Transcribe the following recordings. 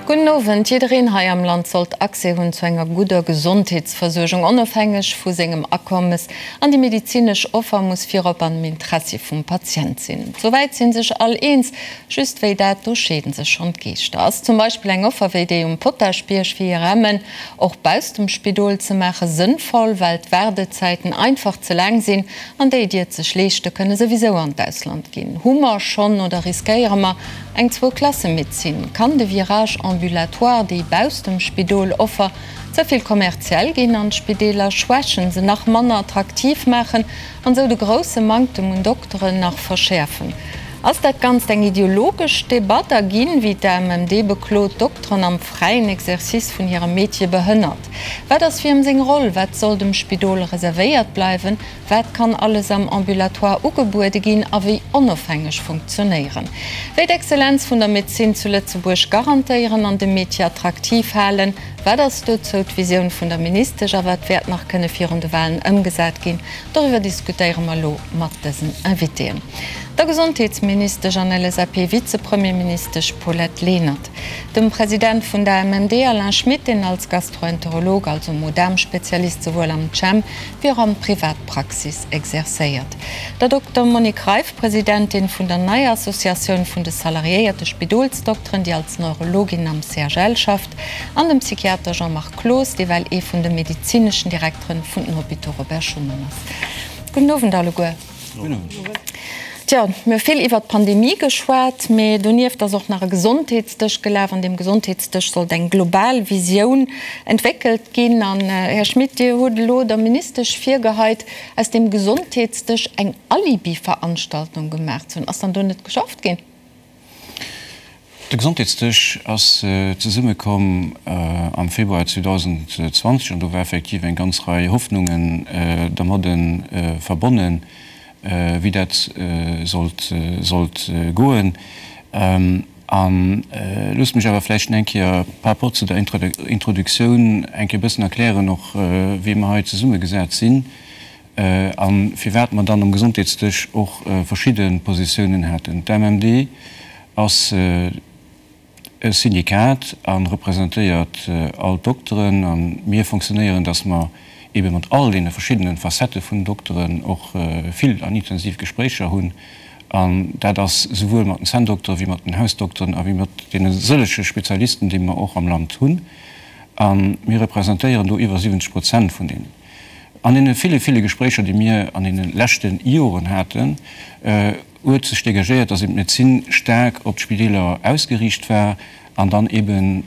Gudden Owend. Jiddereen hei am Land sollt Accès hunn zu enger gudder Gesondheetsversuergung, onofhängeg vu sengem Akommes. An déi medezinesch Offer muss virop an dem Interessi vum Patient sinn. Souwäit si sech all eens. Just wéi dat, do scheeden sech schonn d'Geeschter. Ass zum Beispill eng Offer wéi déi um Potaschbierg fir IRMen och bausst dem Spidol ze maachen sënnvoll, well d'Waardezäiten einfach ze laang sinn an déi, déi et sech leeschte kënne souwisou an d'Ausland ginn? Hu mer schonn oder riskéiere mer eng Zwou-Klasse-Medezin? Kann de Virage ambulatoire, déi bausst dem Spidol Offer, ze vill kommerziell ginn an d'Spideeler schwächen, se nach manner attraktiv maachen an esou de grousse Manktem un Dokteren nach verschäerfen? Ass dat Ganzt eng ideologesch Debatt a ginn, wéi d'AMMD beklot, d'Dokteren am fräien Exercice vun hirem Metier behënnert? Wat ass wiem seng Roll? Wat soll dem Spidol reservéiert bleiwen? Wat kann alles am Ambulatoire ugebuede ginn a wéi onofhängeg funktionéieren? Wéi d'Exzellenz vun der Medezin zu Lëtzebuerg garantéieren an de Metier attraktiv halen? Wat ass dozou d'Visioun vun der Ministesch a wat wäert nach kënne virun de Walen ëmgesat ginn? Doriwwer diskutéiere mer elo mat dësen Invitéen, der Gesondheetsministesch an LSAP-Vizepremierministesch Paulette Lenert, dem President vun der AMMD Alain Schmit, deen als Gastroenterolog, also Mo-Daarm-Spezialist, souwuel am CHEM wéi och an Privatpraxis exercéiert, der Dokter Monique Reiff, Presidentin vun der neier Associatioun vun de salariéierte Spidolsdokteren, déi als Neurologin am CHL schafft, an dem Psychiater Jean-Marc Cloos, dee well ee vun de medezineschen Direkteren vun den Hôpitaux Robert Schuman ass. Gudden Owend alleguer. Tjo, mir hu vill iwwert d'Pandemie geschwat, mee donieft ass och nach e Gesondheetsdësch gelaf. An deem Gesondheetsdësch sollt eng global Visioun entwéckelt ginn. An, Här Schmit, Dir hutt elo der Ministesch virgeheit, aus deem Gesondheetsdësch eng Alibi-Veranstaltung gemaach ze hunn. Ass dann do net geschafft ginn? De Gesondheetsdësch ass zesummekomm am Februar 2020 an do war effektiv eng ganz Rei Hoffnungen dermadde verbonnen, wéi dat sollt sollt goen. A loosst mech awer vläicht eng Kéier par rapport zu der Introduktioun eng Kéier e bëssen erklären och, wéi mer hei zesummegesat sinn. A firwat mer dann um Gesondheetsdësch och verschidde Positiounen haten. D'AMMD ass e Syndikat a representéiert all d'Dokteren. A mir fonctionnéieren, datt mer eebe mat all deene verschiddene Facettë vun Dokteren och vill an intensiv Gespréicher hunn. An dat ass souwuel mat den Zänndokteren, wéi mat den Hausdokteren a wéi mat deene sëllege Spezialisten, déi mer och am Land hunn. A mir representéieren do iwwer 70 Prozent vun deenen. An deene ville, ville Gespréicher, déi mir an deene leschte Joren haten, huet sech dégagéiert, dass eben d'Medezin staark op d'Spideeler ausgeriicht war an dann eben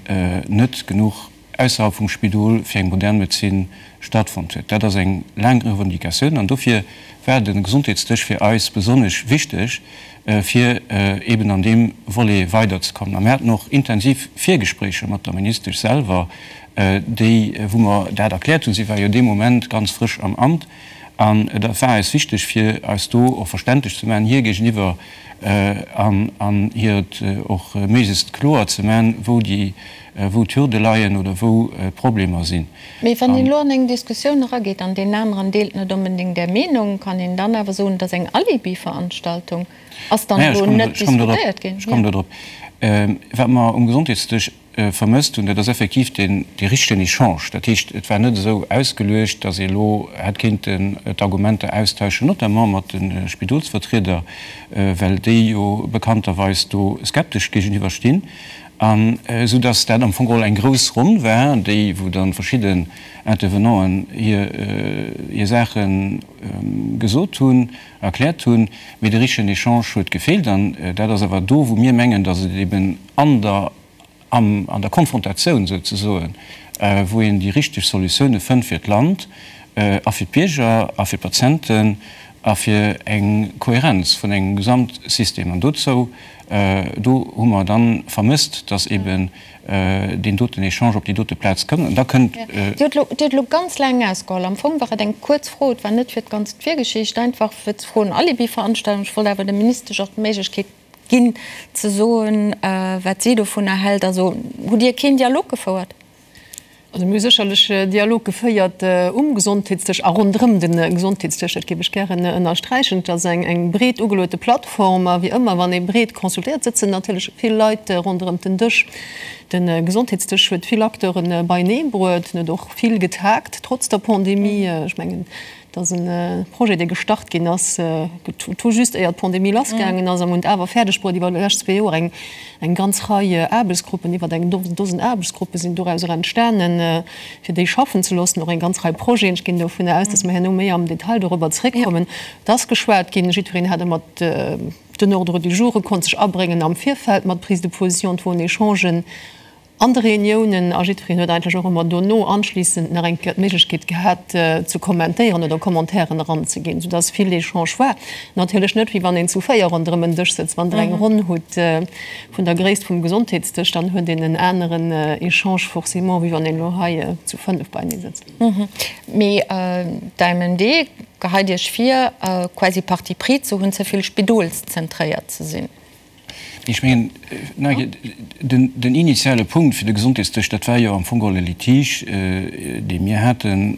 net genuch ausserhalb vum Spidol fir eng modern Medezin stattfonnt huet. Dat ass eng laang Revendicatioun an dofir war de Gesondheetsdësch fir eis besonnesch wichteg, fir eben an deem Volet weiderzekommen. A mir haten och intensiv Virgespréicher mat der Ministesch selwer, déi, wou mer dat erkläert hunn. Si war jo dee Moment ganz frësch am Amt an et war eis wichteg, fir eis do och verständlech ze maachen hir géigeniwwer an an hir et och méiglechst kloer ze maachen, wou déi, wou d'Hürde leien oder wou d'Problemer sinn. Mee wann een elo an eng Diskussioun erageet an deen aneren deelt net onbedéngt Är Meenung, kann een dann awer soen, et ass eng Alibi-Veranstaltung? Ass dann elo net diskutéiert ginn? Ech kommen do drop. Wat mer um Gesondheetsdësch vermësst hunn, dat ass effektiv deen dee richtegen Echange. Dat heescht, et war net esou ausgeluecht, datt ee elo hätt kéinten d'Argumenter austauschen, notamment mat de Spidolsvertrieder, well déi jo bekannterweis do skeptesch géigeniwwer stinn, an esou datt dat am Fong geholl eng grouss Ronn war, déi wou dann verschidden Intervenanten hir hir Saache gesot hunn, erkläert hunn, mee de richtegen Echange huet gefeelt. An dat ass awer do, wou mir mengen, datt et eben an der an der Konfrontatioun souzesoen, wou een déi richteg Solutioune fënnt fir d'Land a fir d'Bierger a fir d'Patienten a fir eng Kohärenz vun engem Gesamtsystem. An dozou, do hu mer dann vermësst, dass eben deen doten Echange op déi dote Plaz kënnt. An da kënnt. Dir hutt elo ganz laang ausgeholl. Am Fong war et eng kuerz Fro. Et war net fir d'ganz Virgeschicht, einfach fir ze froen, Alibi-Veranstaltung. Ech wollt awer der Ministesch och d'Méiglechkeet Ginn, ze soen, wat si dovunner hält. Also hutt Dir keen Dialog gefouert? Also mir hu sécherlech Dialog geféiert um Gesondheetsdësch a ronderëm de Gesondheetsdësch. Dat géif ech gären ënnersträichen. Et ass eng breet ugeluete Plattform a wéi ëmmer, wann ee breet consultéiert, sëtzen natierlech vill Leit ronderëm den Dësch. De Gesondheetsdësch huet vill Acteure beienee bruet, en huet och vill getagt, trotz der Pandemie. Ech mengen, Et ass e Projet, dee gestart ginn ass tout juste éier d'Pandemie lassgaangen ass. A mir hunn et awer fäerdeg bruet, iwwer déi lescht zwee Joer eng eng ganz Rei Aarbechtsgruppen, iwwer eng Dosen Aarbechtsgruppe sinn dorauser entstanen, fir déi schaffen ze loossen. Och eng ganz Rei Projeten. Ech ginn dovunner aus, dass mer herno méi am Detail dorobber zréckkommen. Et ass geschwat ginn, jiddwereen hat ëmmer den Ordre du jour, e konnt sech abréngen am Virfeld mat Prise de position, et woren Echangen. An de Reuniounen, a jiddwereen huet eigentlech och ëmmer dono anschliissend nach eng Kéier d'Méiglechkeet gehat ze kommentéieren oder Commentairen eranzeginn, soudass vill Echange war. Natierlech net wéi wann een zu 4 ronderëm en Dësch sëtzt. Wann Der eng Ronn hutt vun der Gréisst vum Gesondheetsdësch, dann huet een en aneren Echange forcément, wéi wann een elo hei zu 5 beinee sëtzt. Mee d'AMMD geheit Iech vir, quasi Parti pris ze hunn, ze vill spidolszentréiert ze sinn. Ech mengen, den initiale Punkt fir de Gesondheetsdësch, dat war jo am Fong geholl e Litige, dee mir hate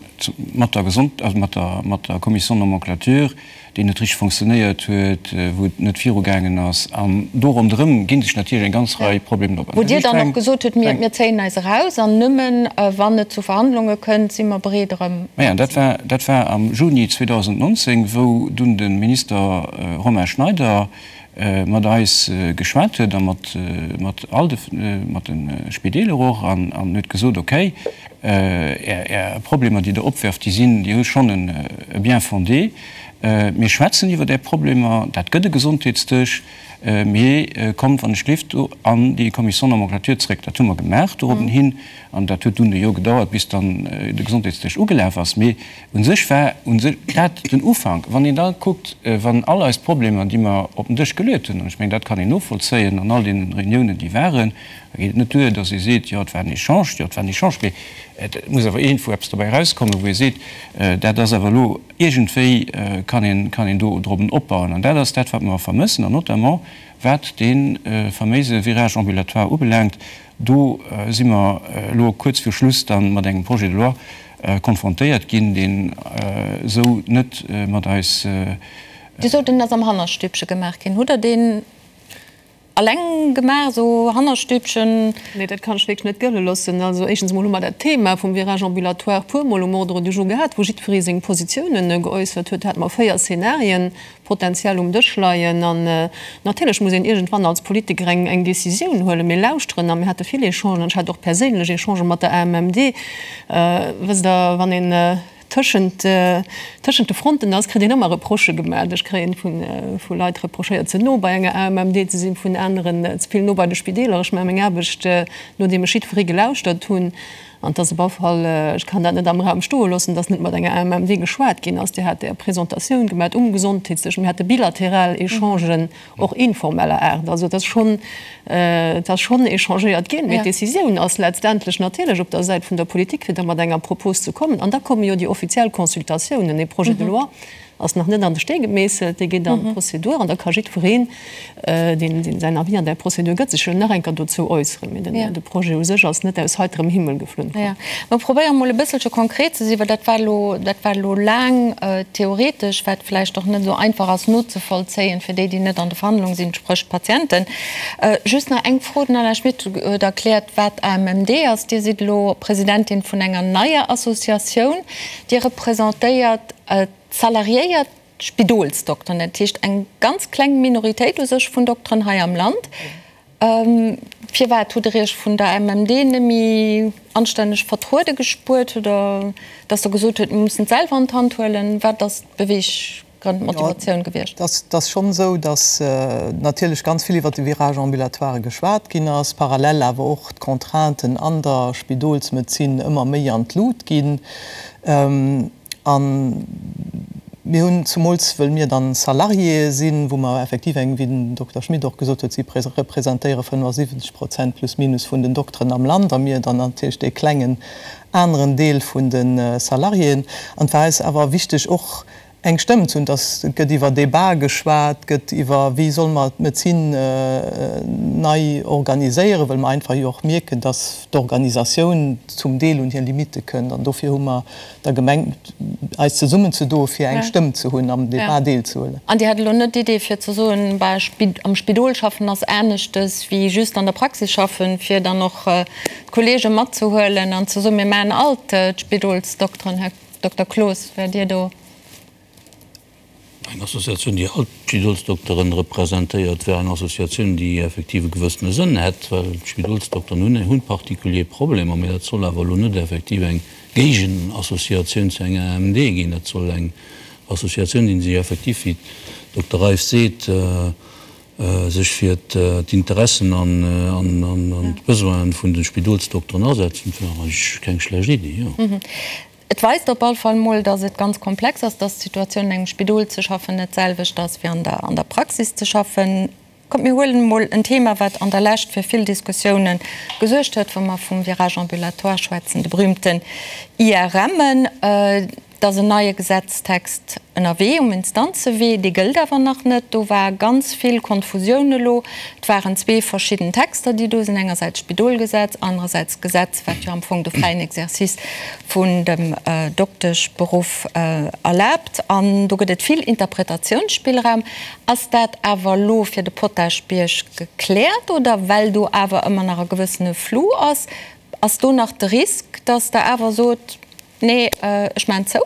mat der Gesond-, also mat der, mat der Commission de nomenclature, déi net richteg fonctionnéiert huet, wou et net virugaangen ass. An do ronderëm gi sech natierlech eng ganz Rei Problemer op. Wou Dir dann och gesot hutt, mir, mir zéien eis eraus an nëmmen wann et zu Verhandlunge kënnt, si mer bereet erëm. Maja, dat war, dat war am Juni 2019, wou dunn de Minister Romain Schneider mat eis geschwat huet a mat mat all de mat de Spideeler och an an huet gesot, okay, Är Är Problemer, déi Der opwerft, déi sinn, déi hu schonn e Bien-fondé. Mir schwätzen iwwert Är Problemer, dat gëtt e Gesondheetsdësch, mee kommt wann ech gleeft do an déi Commission nomenclature zréck. Dat hu mer gemaach dorobben hin an dat huet dunn e Joer gedauert, bis dann de Gesondheetsdësch ugelaf ass. Mee U sech war u sech dat den Ufank. Wann een da kuckt, wann all eis Problemer, déi mer op den Dësch geluet hunn, an ech mengen, dat kann een novollzéien an all deene Reuniounen, déi waren, da geet et net duer, datt ee seet, jo, et war en Echange, jo, et war en Echange, mee et muss awer iergendwou eppes dobäi erauskommen, wou ee seet, dat ass awer elo iergendwéi kann een, kann een do drop opbauen. An dat ass dat, wat mer vermëssen, an notamment wat dee faméise Virage ambulatoire ubelaangt, Do si mer elo kuerz viru Schluss da mat engem Projet de loi konfrontéiert ginn, deen esou net mat eis. Dir sot, en ass am Hannerstübche gemaach ginn. Hutt Der deen alleng gemaach, esou Hannerstübchen? Nee, dat kann ech wierklech net gëlle loossen. Also éischtens emol hu mer dat Thema vum Virage ambulatoire puermol um Ordre du jour gehat, wou jiddweree seng Positiounen geäussert huet. Do hate mer 4 Szenarien. Potenziell um Dësch leien. An natierlech muss een iergendwann als Politiker eng eng Décisioun huelen. Mir lauschteren a mir hate vill Echangen an ech hat och perséinlech Echangë mat der AMMD. Wësst Der, wann een tëschent tëschent de Fronten ass, kritt een ëmmer Reprochë gemaach. Ech kréien vu vu Leit reprochéiert, ze no bei enger AMMD ze sinn, vun aneren ze vill no bei de Spideeler. Ech maache meng Aarbecht, nodeem ech jiddweree gelauschtert hunn. An et ass op alle Fall, ech kann dat net am Raum stoe loossen, dass net mat enger AMMD geschwat ginn ass. Dir hat Är Presentatioun gemat um Gesondheetsdësch. Mir hate bilateral Echangen, och informeller Aart. Also et ass schonn, et ass schonn échangéiert ginn. Mee d'Décisioun ass letztendlech natierlech op der Säit vun der Politik, fir da mat enger Propos ze kommen. An da komme jo déi offiziell Consultatiounen. E Projet de loi ass nach net an de Stee gemeesselt, dee geet an d'Prozedur an da ka jiddwereen, deen säin Avis an där Prozedur gëtt, sech jo nach eng Kéier dozou äusseren. Mee de Projet u sech ass net aus heiterem Himmel geflunn komm. Mer probéiere mol e bësselche konkret ze sinn, well dat war elo, dat war elo laang theoretesch, wat vläicht och net esou einfach ass nozevollzéien fir déi, déi net an de Verhandlungen sinn, spréch d'Patienten. Just nach eng Fro, Den Alain Schmit huet erkläert, wat AMMD ass. Dir sidd elo Presidentin vun enger neier Associatioun. Dir representéiert d'salariéiert Spidolsdokteren, dat heescht eng ganz kleng Minoritéit u sech vun Dokteren hei am Land. Firwat hutt Der Iech vun der MMD net méi anstänneg vertruede gespuert oder datt Der gesot hutt, mir mussen et selwer an d'Hand huelen? Wat ass d'Beweeggrënn, d'Motivatioun gewiescht? Et ass schonn esou, datt natierlech ganz vill iwwert de Virage ambulatoire geschwat ginn ass, parallel awer och d'Contrainten an der Spidolsmedezin ëmmer méi an d'Lut ginn. A mir hunn, zumools wëll mir dann Salariéë sinn, wou mer effektiv eng, wéi den Dokter Schmit och gesot huet, si representéiere 75 Prozent plus minus vun den Dokteren am Land a mir dann natierlech dee klengen aneren Deel vun de Salariéen. An et war eis awer wichteg och. Eng Stëmm ze hunn, dass et gëtt iwwer Debat geschwat, gëtt iwwer wéi solle mer d'Medezin nei organiséieren, well mer einfach jo och mierken, dass d'Organisatioun zum Deel un hir Limitte kënnt. An dofir hu mer da gemengt, eis zesummenzedoe fir eng Stëmm ze hunn, am Debat deelzehuelen. An Dir hat elo net d'Idee fir ze soen, bah, am Spidol schaffen ass aneschtes wéi just an der Praxis schaffen, fir dann och d'Kollege matzehuelen an ze soen, mir maachen all d'Spidolsdokteren, Här Dokter Cloos, wäert Dir do. Eng Associatioun, déi all d'Spidolsdokteren representéiert, wär eng Associatioun, déi effektiv e gewëssene Sënn hätt, well d'Spidolsdokteren hunn hunn particulier Problemer. Mee dat soll awer elo net effektiv eng Géigenassociatioun zu enger AMMD ginn. Dat soll eng Associatioun sinn, déi effektiv, wéi d'Dokter Reiff seet, sech fir d'Interessen an d'Besoinen vun de Spidolsdokteren asetzen. Dat wär eigentlech keng schlecht Iddi, jo. Et weist op all Fall mol, dass et ganz komplex ass, dass d'Situatioun an engem Spidol ze schaffen net d'selwecht ass wéi an der an der Praxis ze schaffen. Kommt mir huelen emol en Thema, wat an der Lescht fir vill Diskussiounen gesuergt huet, wa mer vum Virage ambulatoire schwätzen, de berühmten IRMen. Et ass en neie Gesetztext ënnerwee um Instanzewee, dee gëllt awer nach net. Do war ganz vill Konfusioun elo. Et waren zwee verschidden Texter, déi do sinn, engersäits d'Spidolgesetz, anerersäits d'Gesetz, wat jo am Fong de fräien Exercice vun dem Dokteschberuff erlaabt. An do gëtt et vill Interpretatiounsspillraum. Ass dat awer elo fir de Potaschbierg gekläert oder well do awer ëmmer nach e gewëssene Flou ass, ass do nach de Risk, datt Der awer sot, Nee, ech maachen zou.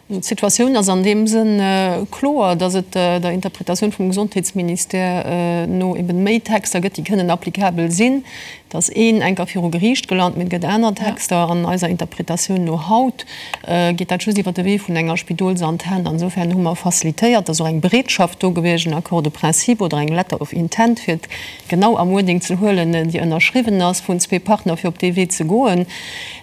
D'Situatioun ass an deem Sënn kloer, datt et der Interpretatioun vum Gesondheetsministère no eben méi Texter gëtt, déi kënnen applicabel sinn. Et ass een enker viru Geriicht gelant, mee et gëtt aner Texter. An eiser Interpretatioun no haut geet dat just iwwer de Wee vun enger Spidolsantenn. Insofern hu mer facilitéiert, et ass och eng Bereetschaft do gewiescht, en Accord de principe oder eng Letter of intent, fir et genau am Wording ze huelen, déi ënnerschriwwen ass vun zwee Partner, fir op dee Wee ze goen.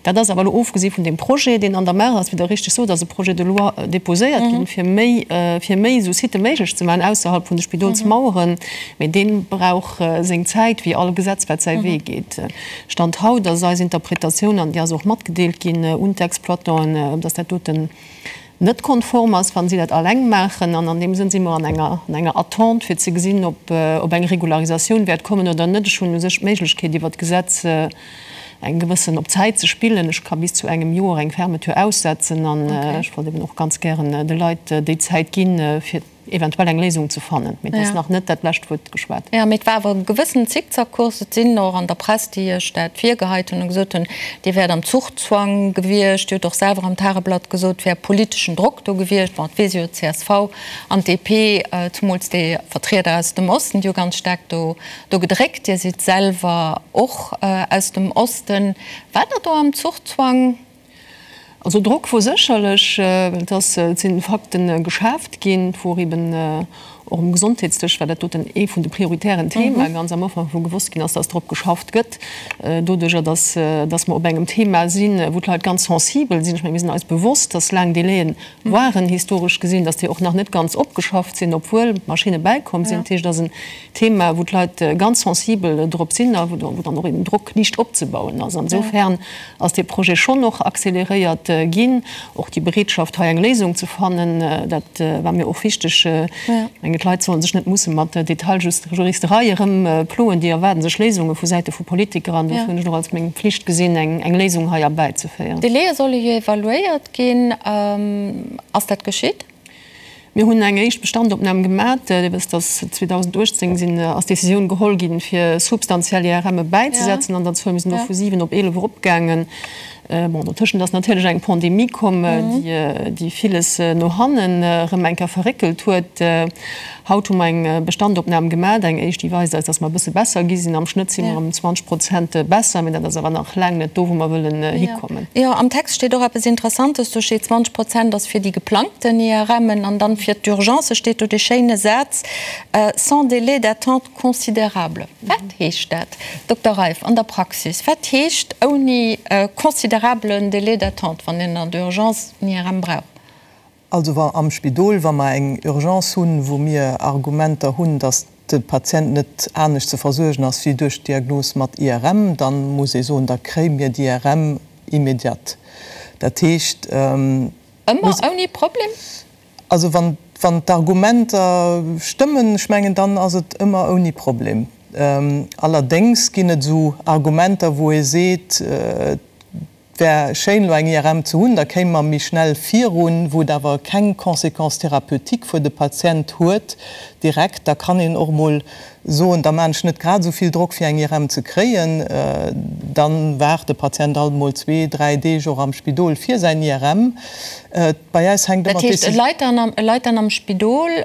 Dat ass awer elo ofgesi vun deem Projet, deen an der Maach ass. Wéi Der richteg sot, ass e Projet de loi déposéiert ginn, fir méi, fir méi esou Sitë méiglech ze maachen ausserhalb vun de Spidolsmaueren. Mee dee brauch seng Zäit, wéi all Gesetz, wat säi Wee geet. Stand haut ass eis Interpretatioun, an déi ass och matgedeelt ginn un d'Exploitanten, dass dat doten net konform ass, wa si dat alleng maachen. An an deem Sënn si mer an enger, an enger Attente, fir ze gesinn, ob, ob eng Regularisatioun wäert kommen oder net. Ech hunn u sech d'Méiglechkeet, iwwert d'Gesetz eng gewëssen op Zäit ze spillen. Ech ka bis zu engem Joer eng Fermeture aussetzen an ech wollt eben och ganz gären de Leit déi Zäit ginn, fir eventuell eng Léisung ze fannen. Mee et ass nach net dat lescht Wuert geschwat. Jo, mee et war awer e gewëssenen Zickzackkurs. Et sinn och an der Press, déi Iech dat virgeheit hunn a gesot hunn, Dir wäert am Zuchzwang gewiescht. Dir hutt och selwer am Tageblatt gesot, et wär politeschen Drock do gewiescht. Bon, et weess ee jo, d'CSV an d'DP, zumools déi Vertrieder aus dem Osten, déi hu ganz staark do Do gedréckt. Dir sidd selwer och aus dem Osten. Waart Der do am Zuchzwang? Also Drock wor sécherlech, well et ass, et sinn Fakten geschaaft ginn, et wor eben och um Gesondheetsdësch war dat doten ee vun de prioritären Themae ganz am Ufank, wou gewosst ginn ass, dass drop geschafft gëtt. Doduerjer, dass, dass mer op engem Thema sinn, wou d'Leit ganz sensibel sinn. Ech menge mir sinn eis bewosst, dass laang Délaië waren, historesch gesinn, dass déi och nach net ganz opgeschafft sinn, obwuel Maschinne bäikomm sinn. Dat heescht, et ass en Thema, wou d'Leit ganz sensibel drop sinn a wou dann och eben Drock liicht opzebauen ass. Insofern ass dee Projet schonn och accéléréiert ginn. Och déi Bereetschaft, hei eng Léisung ze fannen, dat war mir och wichteg. Ech mengen, d'Leit solle sech net musse mat Detailjuristerei erëmploen. Déi erwaarde sech Léisunge vu Säite vu Politiker an dofir hunn ech et och als meng Pflicht gesinn, eng Léisung hei erbäizeféieren. D'Délaie solle jo evaluéiert ginn. Ass dat geschitt? Mir hunn eng éischt Bestandopnam gemat. Dir wësst, dass 2018 sinn, ass d'Décisioun geholl ginn, fir substantiell IRMe bäizesetzen an der Zuel. Mir sinn do vu 7 op 11 eropgaangen. Bon, dotëschent ass natierlech eng Pandemie komm, déi, déi villes no hannen erëm eng Kéier verréckelt huet. Haut hu mer eng Bestandopnam gemat, eng éischt, déi weist eis, dass mer e bësse besser gi sinn. Am Schnëtt si mer ëm 20 Prozent besser, mee dat ass awer nach laang net do, wou mer wëllen hikommen. Jo, am Text steet och eppes Interessantes. Do steet, 20 Prozent ass fir déi geplangten IRMen an dann fir d'Urgencë steet do dee schéine Saz, sans délai d'attente considérable. Wat heescht dat, Dokter Reiff, an der Praxis? Wat heescht ouni considérablen Délai d'attente, wann een an der Urgence en IRM brauch? Also wa am Spidol, wa mer eng Urgence hunn, wou mir Argumenter hunn, datt de Patient net anescht ze versuergen ass wéi duerch d'Diagnos mat IRM, da muss ee soen, da kréie mir d'IRM immédiat. Dat heescht. Ëmmer ouni Problem? Also wann d'Argumenter stëmmen, ech mengen, dann ass et ëmmer ouni Problem. Allerdéngs ginn et esou Argumenter, wou ee seet, et wär schéin elo eng IRM ze hunn, da kéime mer méi schnell virun, wou et awer keng Conséquence thérapeutique fir de Patient huet direkt. Da kann een och emol soen, da maan ech net grad esou vill Drock fir eng IRM ze kréien, dann waart de Patient alt mol zwee, dräi Deeg och am Spidol fir säin IRM. Bei äis hänkt ëmmer Dat heescht, e leit dann am, e leit dann am Spidol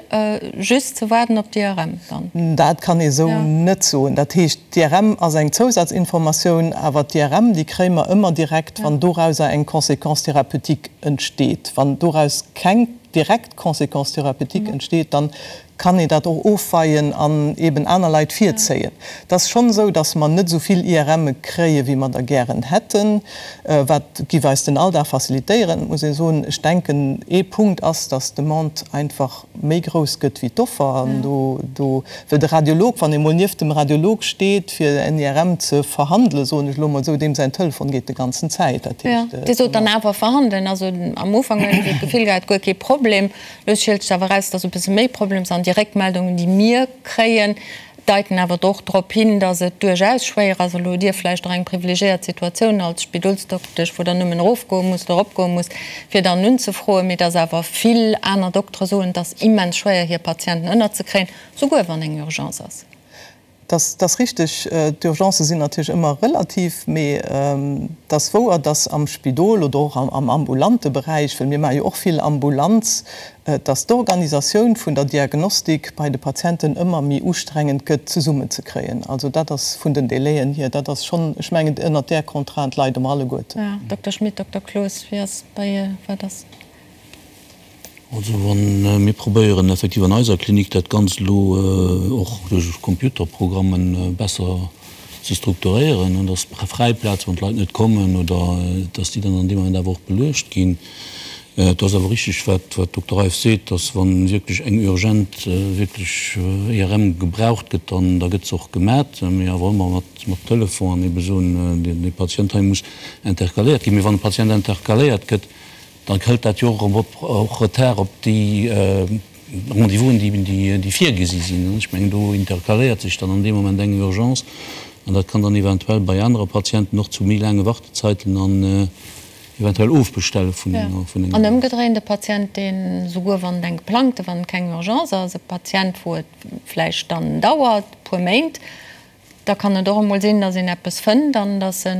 just ze waarden op d'IRM dann? Dat kann ee sou net soen. Dat heescht, d'IRM ass eng Zousatzinformatioun, awer d'IRM, déi kréie mer ëmmer direkt, wann dorauser eng Conséquence thérapeutique entsteet. Wann doraus keng direkt Conséquence thérapeutique entsteet, dann kann een dat och ofweien an eben aner Leit virzéien. Et ass schonn esou, datt mer net esou vill IRMe kréie wéi mer der gären hätten, wat giff eis den Alldag facilitéieren. Et muss ee soen, ech denken ee Punkt ass, datt d'Demande einfach méi grouss gëtt wéi d'Offer an do, do, well de Radiolog, wann ee mol nieft dem Radiolog steet fir en IRM ze verhandelen, soen ech elo mol esou, deem säin Telefon geet de ganzen Zäit. Dat heescht. Dir sot dann awer verhandelen, also am Ufank hunn ech esou d'Gefill gehat, guer kee Problem. Lo schielt sech awer eraus, dass e bësse méi Problems an déi Réckmeldungen, déi mir kréien, deiten awer och drop hin, dass et duerchaus schwéier ass. Elo hutt Dir vläicht och eng privilegiéiert Situatioun als Spidolsdoktesch, wou Der nëmmen erofgoe musst oder eropgoe musst, fir dann unzefroen, mee dass awer vill aner Doktere soen, et ass immens schwéier, hir Patienten ënnerzekréien, souguer wann eng Urgence ass. Dat ass richteg. D'Urgencë sinn natierlech ëmmer relativ, mee et ass wouer, dass am Spidol oder och am ambulante Beräich, well mir maache jo och vill Ambulanz, dass d'Organisatioun vun der Diagnostik bei de Patienten ëmmer méi ustrengend gëtt zesummenzekréien. Also dat ass vun den Délaiën hier, dat ass schonn, ech mengen, ënnert där Contrainte leide mer alleguerten. Dokter Schmit, Dokter Cloos, wéi ass bei, wat ass? Also wa mir probéieren effektiv an eiser Klinik dat Ganzt elo och duerch Computerprogrammen besser ze strukturéieren, dass fräi Plaze wann d'Leit net kommen oder dass déi dann an deem Moment awer och beluecht ginn. Et ass awer richtig wat d'Dokter Reiff seet, dass wa wierklech eng urgent wierklech IRM gebraucht gëtt, dann da gëtt se och gemat, mee awer ëmmer mat Telefon an ebe soen, dee Patient hei muss intercaléiert ginn. Mee wann e Patient intercaléiert gëtt, Da hëlt dat jo och erëm och Retard op déi Rendez-vousen, déi virgesi sinn. Ech mengen, do intercaléiert sech dann an deem Moment eng Urgence an dat kann dann eventuell bei anere Patienten och zu méi laange Wartezeiten an eventuell Ofbestelle vun enger. An ëmgedréint, e Patient, deen, souguer wann et eng geplangte, wann et keng Urgence ass, e Patient, wou et vläicht dann dauert e puer Méint, Da kann et och emol sinn, datt een eppes fënnt an datt e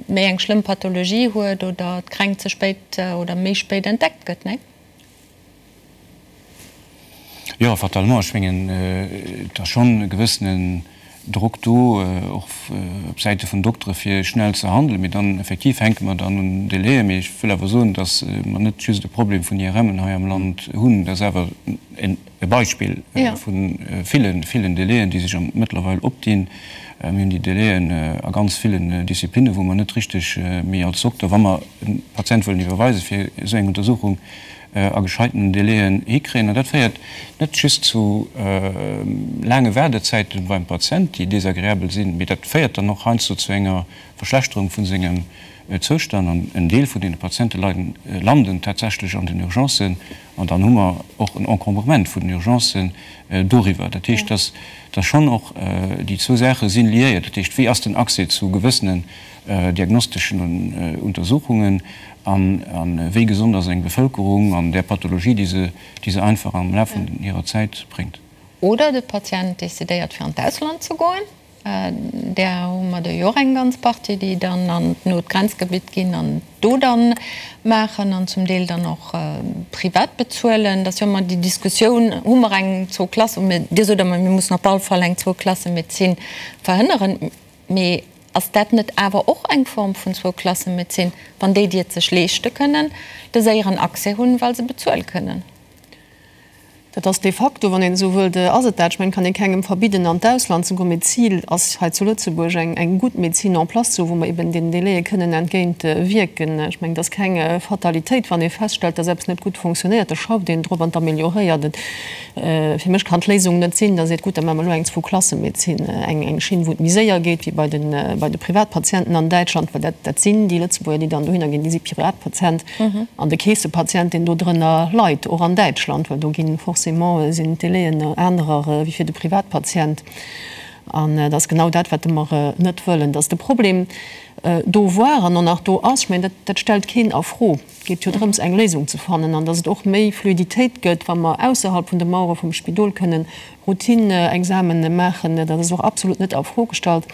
méi eng schlëmm Pathologie huet oder d'Kränkt ze spéit oder méi spéit entdeckt gëtt, nee? Jo, fatalement. Ech mengen, et ass schonn e gewëssenen Drock do, och op Säite vun Doktere fir schnell ze handelen. Mee dann effektiv hänke mer dann un Délaië. Mee ech wëll awer soen, datt mer net just e Problem vun IRMen hei am Land hunn. Dat ass awer en. E Beispill vu villen, villen Délaiën, déi sech mëttlerweil opdinn. Mir hunn déi Délaiën a ganz villen Disziplinnen, wou mer net richteg méi als Dokter, wa mer e Patient wëllen iwwerweisen, fir esou eng Untersuchung a gescheiten Délaiën hikréien. An dat féiert net just zu laange Waardezäite beim Patient, déi desagreabel sinn, mee dat féiert dann och heiansdo zu enger Verschlechterung vu sengem Zoustand. An en Deel vun deene Patiente landen tatsächlech an den Urgencen. An dann hu mer och en Encombrement vun den Urgencen doriwwer. Dat heescht, dass dass schonn och déi zwou Saache si liéiert. Dat heescht, wéi ass den Accès zu gewëssenen diagnosteschen Untersuchungen an wéi gesond ass eng Bevëlkerung an där Pathologie, déi se déi se einfach am Laf vun hirer Zäit bréngt. Oder de Patient decidéiert fir an d'Ausland ze goen. Där hu mer der jo och eng ganz Partie, déi dann an d'not Grenzgebitt ginn an do dann maachen an zum Deel dann och privat bezuelen. Dat ass jo ëmmer déi Diskussioun, hu mer eng Zwou-Klasse, Dir sot ëmmer, mir mussen op all Fall eng Zwou-Klasse-Medezin verhënneren. Mee ass dat net awer och eng Form vun Zwou-Klasse-Medezin, wann déi, déi et sech leeschte kënnen, de séieren Accès hunn, well se bezuele kënnen? Dat ass de facto, wann een esou wëllt, ass et dat. Ech mengen, et kann ee kengem verbidden an d'Ausland ze goen, mee d'Zil ass hei zu Lëtzebuerg eng eng gutt Medezin en place ze hu wou mer eben deenen Délaië kënnen entgéint wierken. Ech mengen, et ass keng Fatalitéit, wann ee feststellt, dass eppes net gutt fonctionnéiert, da schafft een drop an amelioréiert et. Fir mech kann d'Léisung net sinn, datt ee seet, gutt, da maache mer elo eng Zwou-Klasse-Medezin, eng eng Schinn, wou et méi séier geet wéi bei de bei de Privatpatienten an Däitschland, well dat dat sinn déi Lëtzebuerger, déi dann dohinner ginn, déi si Privatpatient. An de Keessepatient, deen do drënner leit, och an Däitschland, well do gi forcément sinn d'Délaiën anerer wéi fir de Privatpatient. An dat ass genau dat, wat mer net wëllen, dass de Problem do war an och nach do ass. Ech mengen, dat stellt keen a Fro. Et geet jo drëms, eng Léisung ze fannen an dass et och méi Fluiditéit gëtt, wa mer ausserhalb vun de Mauere vum Spidol kënnen Routine-Examene maachen, dat ass och absolut net a Fro gestallt.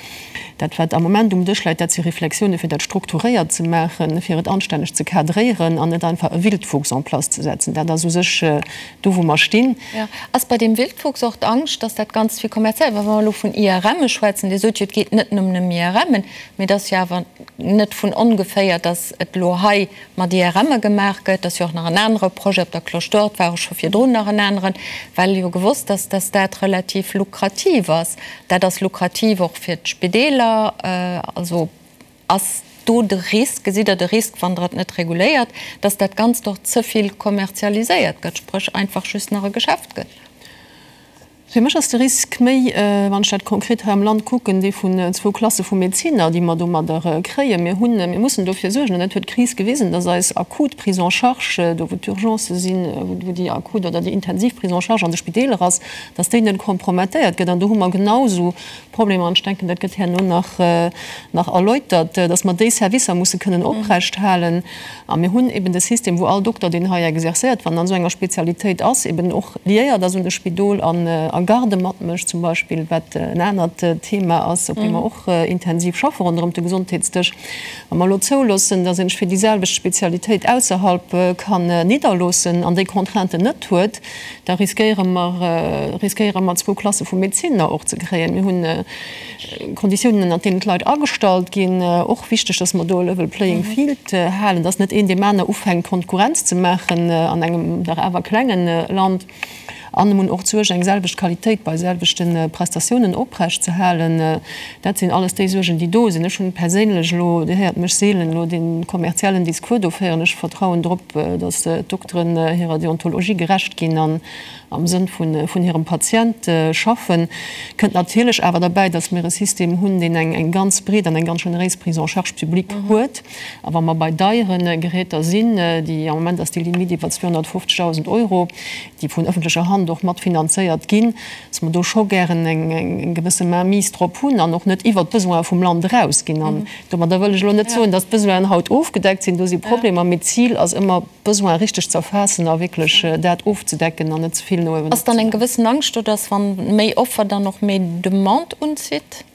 Dat, wat am Moment um Dësch läit, dat si Reflexiounen, fir dat strukturéiert ze maachen, fir et anstänneg ze cadréieren an net einfach e Wildwuchs en place ze setzen. Dat ass u sech do, wou mer stinn. Jo. Ass bei deem Wildwuchs och d'Angscht, dass dat Ganzt vill kommerziell, well wa mer elo vun IRMe schwätzen, Dir sot jo, et geet net nëmmen ëm IRMen, mee et ass jo awer net vun ongeféier, dass et elo hei mat IRMe gemaach gëtt, ass jo och nach en anere Projet op der Cloche d'Or, et war och scho virdrun nach en aneren, well jo gewosst ass, dass dat relativ lukrativ ass. Dat ass lukrativ och fir d'Spideeler. Also ass do de Risk, gesitt Der de Risk, wann Der et net reguléiert, dass dat Ganzt och ze vill kommerzialiséiert gëtt, spréch einfach just nach e Geschäft gëtt? Fir mech ass de Risk méi, wann ech dat konkret hei am Land kucken, dee vun zwou Klasse vu Medezinner, déi mer domadder kréien. Mir hunn, mir mussen dofir suergen, an dat huet d'Kris gewisen, dass eis akut Prise en charge, do wou d'Urgencë sinn, wou déi akut oder déi intensiv Prise en charge an de Spideeler ass, dass déi net kompromettéiert gëtt. An do hu mer genausou Problemer, an ech denken, dat gëtt herno nach, nach erläutert, dass mer déi Servicer musse kënnen oprecht halen. A mir hunn eben de System, wou all Dokter, deen hei exercéiert, wann en an esou enger Spezialitéit ass, eben och liéiert ass un de Spidol an a Garde matmécht zum Beispill, wat en anert Thema ass, op deem mer och intensiv schaffe ronderëm de Gesondheetsdësch. Wa mer elo zouloossen, dass een sech fir déi selwecht Spezialitéit ausserhalb kann nidderloossen an déi Contrainten net huet, da riskéiere mer, riskéiere mer zwou Klasse vu Medezinner och ze kréien. Mir hunn Konditiounen, ënnert deenen d'Leit agestallt ginn, och wichteg, dass mer do e level playing field halen, dass net een deem aner ufänkt Konkurrenz ze maachen an engem dach awer klengen Land. An mir hunn och d'Suerg, eng selwecht Qualitéit bei selwechte Prestatiounen oprecht ze halen. Dat sinn alles déi Suergen, déi do sinn. Ech hunn perséinlech elo, Dir héiert mech seelen elo dee kommerziellen Discours do féieren, ech vertrauen drop, dass d'Dokteren hirer Deontologie gerecht ginn an am Sënn vun hirem Patient schaffen. Kënnt natierlech awer derbäi, dass mir e System hunn, deen eng ganz breet an eng ganz generéis Prise en charge publique huet. A wa mer bei deiere Geräter sinn, déi am Moment ass déi Limite iwwer 250.000 Euro, déi vun öffentlecher Hand och mat finanzéiert ginn, dass mer do scho gären eng gewësse Mainmise drop hunn an och net iwwert d'Besoine vum Land erausginn. An domadder wëll ech elo net soen, dass d'Besoinen haut ofgedeckt sinn. Do si Problemer, mee d'Zil ass ëmmer, d'Besoine richteg ze erfaassen a wierklech dat ofzedecken an net ze vill no uewen Ass dann eng gewëssen Angscht do, dass wann méi Offer dann och méi Demande unzitt?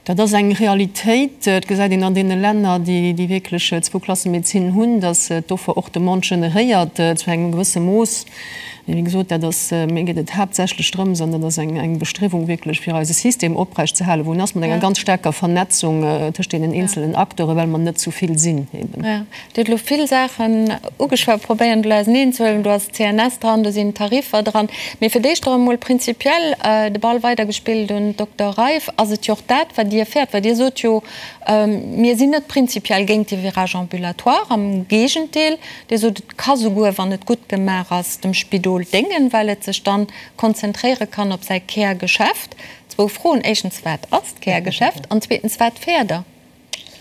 Dat ass eng Realitéit. Et gesäit een an deene Länner, déi wierklech Zwou-Klasse-Medezin hunn, datt d'Offer och Demande generéiert zu engem gewësse Mooss. Mee wéi gesot, dat ass, mir geet et haaptsächlech drëms, an dat ass eng Bestriewung wierklech, fir eise System oprecht ze halen, wou en ass, mat enger ganz staarker Vernetzung tëscht deenen eenzelen Acteuren, well mer net zu vill sinn eben. Dir hutt elo vill Saachen ugeschwat, probéieren elo auseneen ze huelen. Do ass d'CNS dran, do sinn d'Tariffer dran. Mee fir d'éischt och emol prinzipiell de Ball weidergespillt un d'Dokter Reiff, Ass et jo och dat, wat Dir fäert? Well Dir sot jo, mir sinn net prinzipiell géint de Virage ambulatoire, am Géigendeel, Dir sot, et ka souguer, wann et gutt gemaach ass, dem Spidol déngen, well et sech dann konzentréiere kann op säi Kärgeschäft. Zwou Froen, Éischtens, wat ass d'Kärgeschäft? An zweetens, wat fäert Der?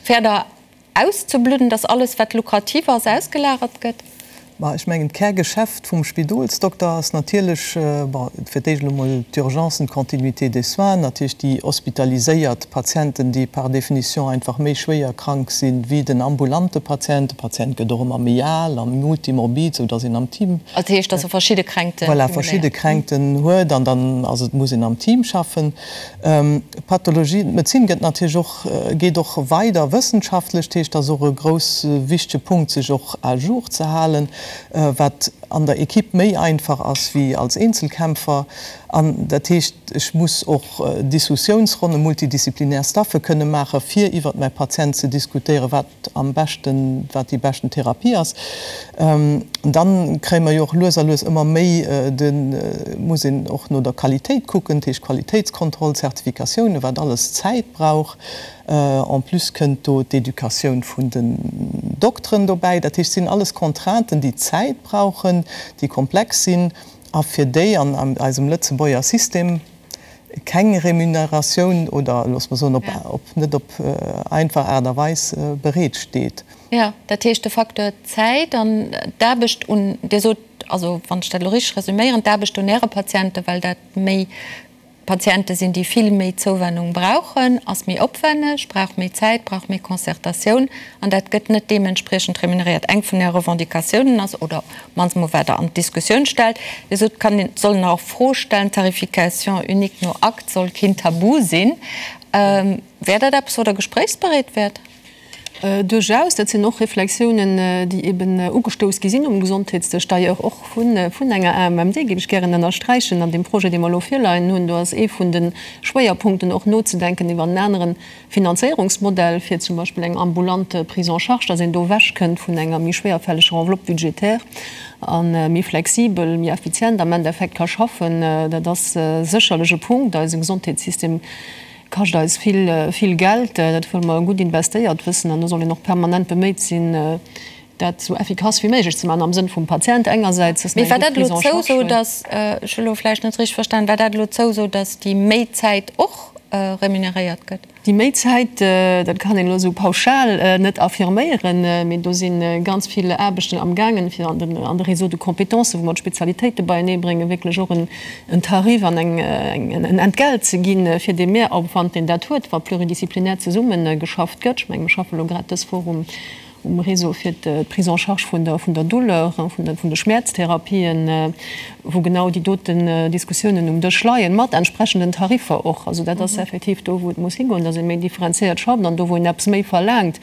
Fäert Der Auszebludden, dass alles wat lukrativ ass, ausgelagert gëtt? Ma ech mengen, d'Kärgeschäft vum Spidolsdokter ass natierlech, bon, fir d'éischt elo mol d'Urgencen, d'Continuité des soins, natierlech déi hospitaliséiert Patienten, déi par définition einfach méi schwéier krank si wéi den ambulante Patient. De Patient gëtt och ëmmer méi al a multimorbid, sou dass een am Team. Dat heescht, dass e verschidde Kränkte Voilà, verschidde Kränkten huet an dann ass et, muss een am Team schaffen. D'Pathologie, d'Medezin gëtt natierlech och, geet och weider wëssenschaftlech, dat heescht, dat ass och e grouss wichtege Punkt, sech och à jour ze halen. wat an der Equipe méi einfach ass wéi als Eenzelkämpfer. An dat heescht, ech muss och Dissussiounsronnen, multidisziplinär Staffe kënne maachen, fir iwwert mäi Patient ze diskutéieren, wat am beschten, wat déi beschten Therapie ass. Dann kréie mer jo och lues a lues ëmmer méi de, muss een och no der Qualitéit kucken, dat heescht Qualitéitskontroll, Zertifikatiounen, wat alles Zäit brauch. En plus kënnt do d'Educatioun vun den Dokteren dobäi. Dat heescht, et sinn alles Contrainten, déi Zäit brauchen, déi komplex sinn a fir déi an eisem Lëtzebuerger System keng Remuneratioun oder, loosse mer soen, op net op einfach Aart a Weis bereet steet. Jo, dat heescht de Facteur Zäit an d'Aarbecht un, Dir sot, also wann ech dat elo richteg resüméieren, d'Aarbecht un Äre Patienten, well dat méi Patiente sinn, déi vill méi Zouwennung brauchen, ass méi opwenneg, brauch méi Zäit, brauch méi Concertatioun an dat gëtt net deementspriechend remuneréiert. Eng vun Äre Revendicatiounen ass, oder op d'mannst emol wat Der an d'Diskussioun stellt, Dir sot, et kann een, soll een och a Fro stellen, d'Tarification unique no Akt soll keen Tabu sinn. Wär dat eppes, wou Der gespréichsbereet wäert? Duerchaus, dat sinn och Reflexiounen, déi eben ugestouss gi sinn um Gesondheetsdësch, d'ailleurs och vun enger AMMD, géif ech gären ënnersträichen. An deem Projet, dee mer elo virleien hunn, do ass ee vun de Schwéierpunkten och nozedenken iwwer en anere Finanzéierungsmodell fir zum Beispill eng ambulante Prise en charge, dass een do ewechkënnt vun enger méi schwéierfälleger Enveloppe budgétaire a méi flexibel, méi effizient am Endeffekt ka schaffen. Dat ass sécherlech e Punkt. Eise Gesondheetssystem Kascht eis vill, vill Geld. Dat wëlle mer gutt investéiert wëssen an do soll een och permanent beméit sinn, dat esou effikass wéi méiglech ze maachen am Sënn vum Patient engersäits, dass Mee war dat elo d'Zouso, dass, ech hu elo vläicht net richteg verstan, war dat elo d'Zouso, dass déi méi Zäit och remuneréiert gëtt? Déi méi Zäit, dat kann een elo esou pauschal net affirméieren, mee do si ganz vill Aarbechten amgaangen, fir an de Réseau de compétences, wou mer d'Spezialitéite beieneebréngen, wierklech och en en Tarif an en Entgelt ze ginn, fir dee Mehraufwand, deen dat huet, wa pluridisziplinär zesumme geschafft gëtt. Ech mengen, mir schaffe elo grad dës Woch um Réseau fir d'Prise en charge vun der Douleur, vun de Schmäerztherapien, wou genau déi doten Diskussiounen um Dësch leien, mat entsprechenden Tariffer och. Also dat ass effektiv do, wou et muss higoen, dass ee méi differenziéiert schafft an do, wou een eppes méi verlaangt,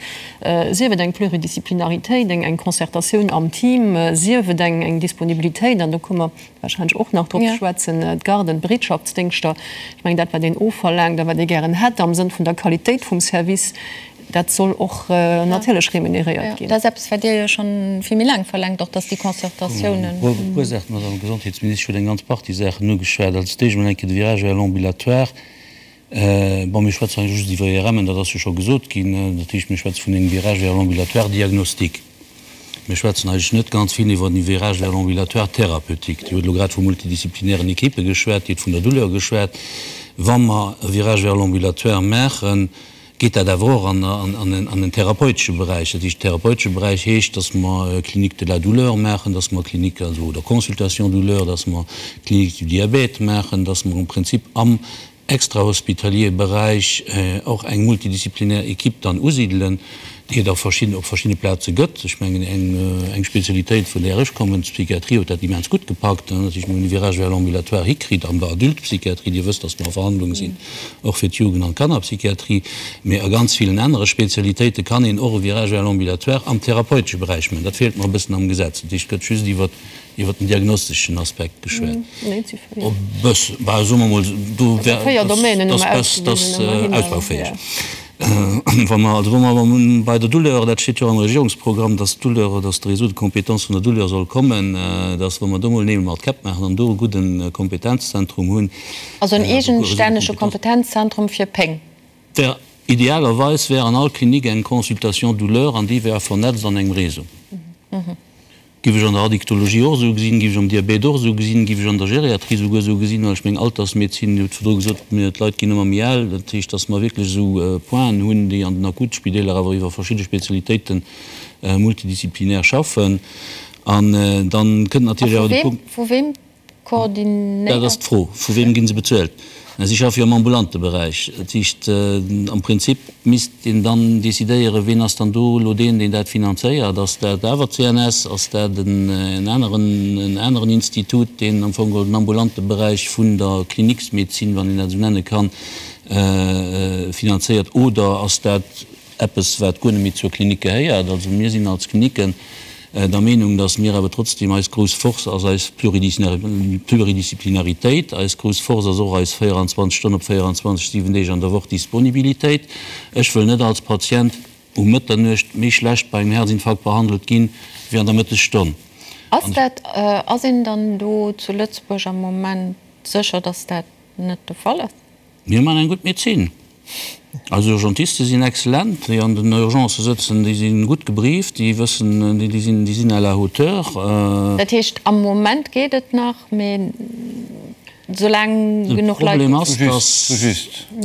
sief et eng Pluridisziplinaritéit, eng Concertatioun am Team, sief et eng Disponibilitéit, an do komme mer warscheinlech och nach drop ze schwätzen, d'Garden, d'Bereetschaftsdéngschter, ech mengen dat wat een ofverlaangt a wat ee gären hätt am Sënn vun der Qualitéit vum Service, dat soll och natierlech remuneréiert ginn. Dat ass eppes, wat Dir jo scho vill méi laang verlaangt, och dass déi Concertatiounen. E puer Saachen, d'Madame Gesondheetsministesch huet eng ganz Partie Saachen ugeschwat. Als d'éischt emol eng Kéier de Virage vers l'ambulatoire. Bon, mir schwätzen hei just iwwer IRMen, dat ass jo scho gesot ginn. Dat heescht, mir schwätze vun engem Virage vers l'ambulatoire diagnostique. Mir schwätzen eigentlech net ganz vill iwwer den Virage vers l'ambulatoire thérapeutique. Dir hutt elo grad vu multidisziplinären Equippe geschwat, Dir hutt vun der Douleur geschwat. Wa mer e Virage vers l'ambulatoire maachen, geet dat awer och an en therapeutesche Beräich. Dat heescht, therapeutesche Beräich heescht, dass mer Clinique de la douleur maachen, dass mer Clinique, also, oder Consultation douleur, dass mer Clinique du diabète maachen, dass mer am Prinzip am extrahospitalier Beräich och eng multidisziplinär Equipe dann usidelen, déi et a verschidden, op verschiddene Plaze gëtt. Ech mengen, eng, eng Spezialitéit, vun där ech kommen, d'Psychiatrie, huet dat immens gutt gepackt, dass ech mol e Virage vers l'ambulatoire hikritt an der Adultpsychiatrie. Dir wësst, dass mer a Verhandlung sinn och fir d'Jugend an d'Kannerpsychiatrie. Mee a ganz villen anere Spezialitéite kann een och e Virage vers l'ambulatoire am therapeutesche Beräich maachen. Dat feelt mer e bëssen am Gesetz. Dat heescht, et gëtt just iwwert Iwwer den diagnosteschen Aspekt geschwat. E bëssen, bah, soe mer mol, do wär, dat ass ausbaufäeg. Wa mer, also wa mer awer bei der Douleur, dat steet jo am Regierungsprogramm, dass d'Douleur, dass de Réseau de compétences vun der Douleur soll kommen, dass wa mer do mol Neel mat Käpp maachen an do e gudde Kompetenzzentrum hunn. Also en eegenstännege Kompetenzzentrum fir Péng. Wär, idealerweis wär an all Klinik eng Consultation douleur an déi wär vernetzt an engem Réseau. Giff ech an der Addiktologie och esou gesinn, giff ech am Diabet och esou gesinn, giff ech an der Geriatrie souguer esou gesinn, well ech meng Altersmedezin, Dir hutt virdru gesot, mir, d'Leit ginn ëmmer méi al, dat heescht, datt mer wierklech esou Pointen hunn, déi an den Akutspideeler awer iwwer verschidde Spezialitéite multidisziplinär schaffen. An dann kënnt natierlech awer de Punkt. Vu weem Koordinéiert. Dat ass d'Fro, Vu weem gi se bezuelt? Si schaffe jo am ambulante Beräich. Dat heescht, am Prinzip misst een dann decidéieren, ween ass dann do elo deen, deen dat finanzéiert? Ass dat awer d'CNS? Ass dat en aneren, en aneren Institut, deen am Fong geholl den ambulante Beräich vun der Kliniksmedezin, wann een dat esou nenne kann, finanzéiert? Oder ass dat eppes, wat guer net méi zur Klinik gehéiert? Also mir sinn als Kliniken. Der Meenung, dass mir awer trotzdem, eis grouss Force ass eis Pluridisciplinaritéit, eis grouss Force ass och eis 24 Stonnen op 24, 7 Deeg an der Woch Disponibilitéit. Ech wëll net als Patient um Mëtternuecht méi schlecht bei engem Herzinfarkt behandelt ginn, wéi an der Mëttesstonn. Ass dat, ass een dann do zu Lëtzebuerg am Moment sécher, dass dat net de Fall ass? Mir man eng gutt Medezin. Eis Urgentiste sinn excellent, déi an den Urgencë sëtzen, déi si gutt gebrieft, déi wëssen, déi sinn, déi sinn à la hauteur. Dat heescht, am Moment geet et nach, mee soulaang genuch Leit do sinn.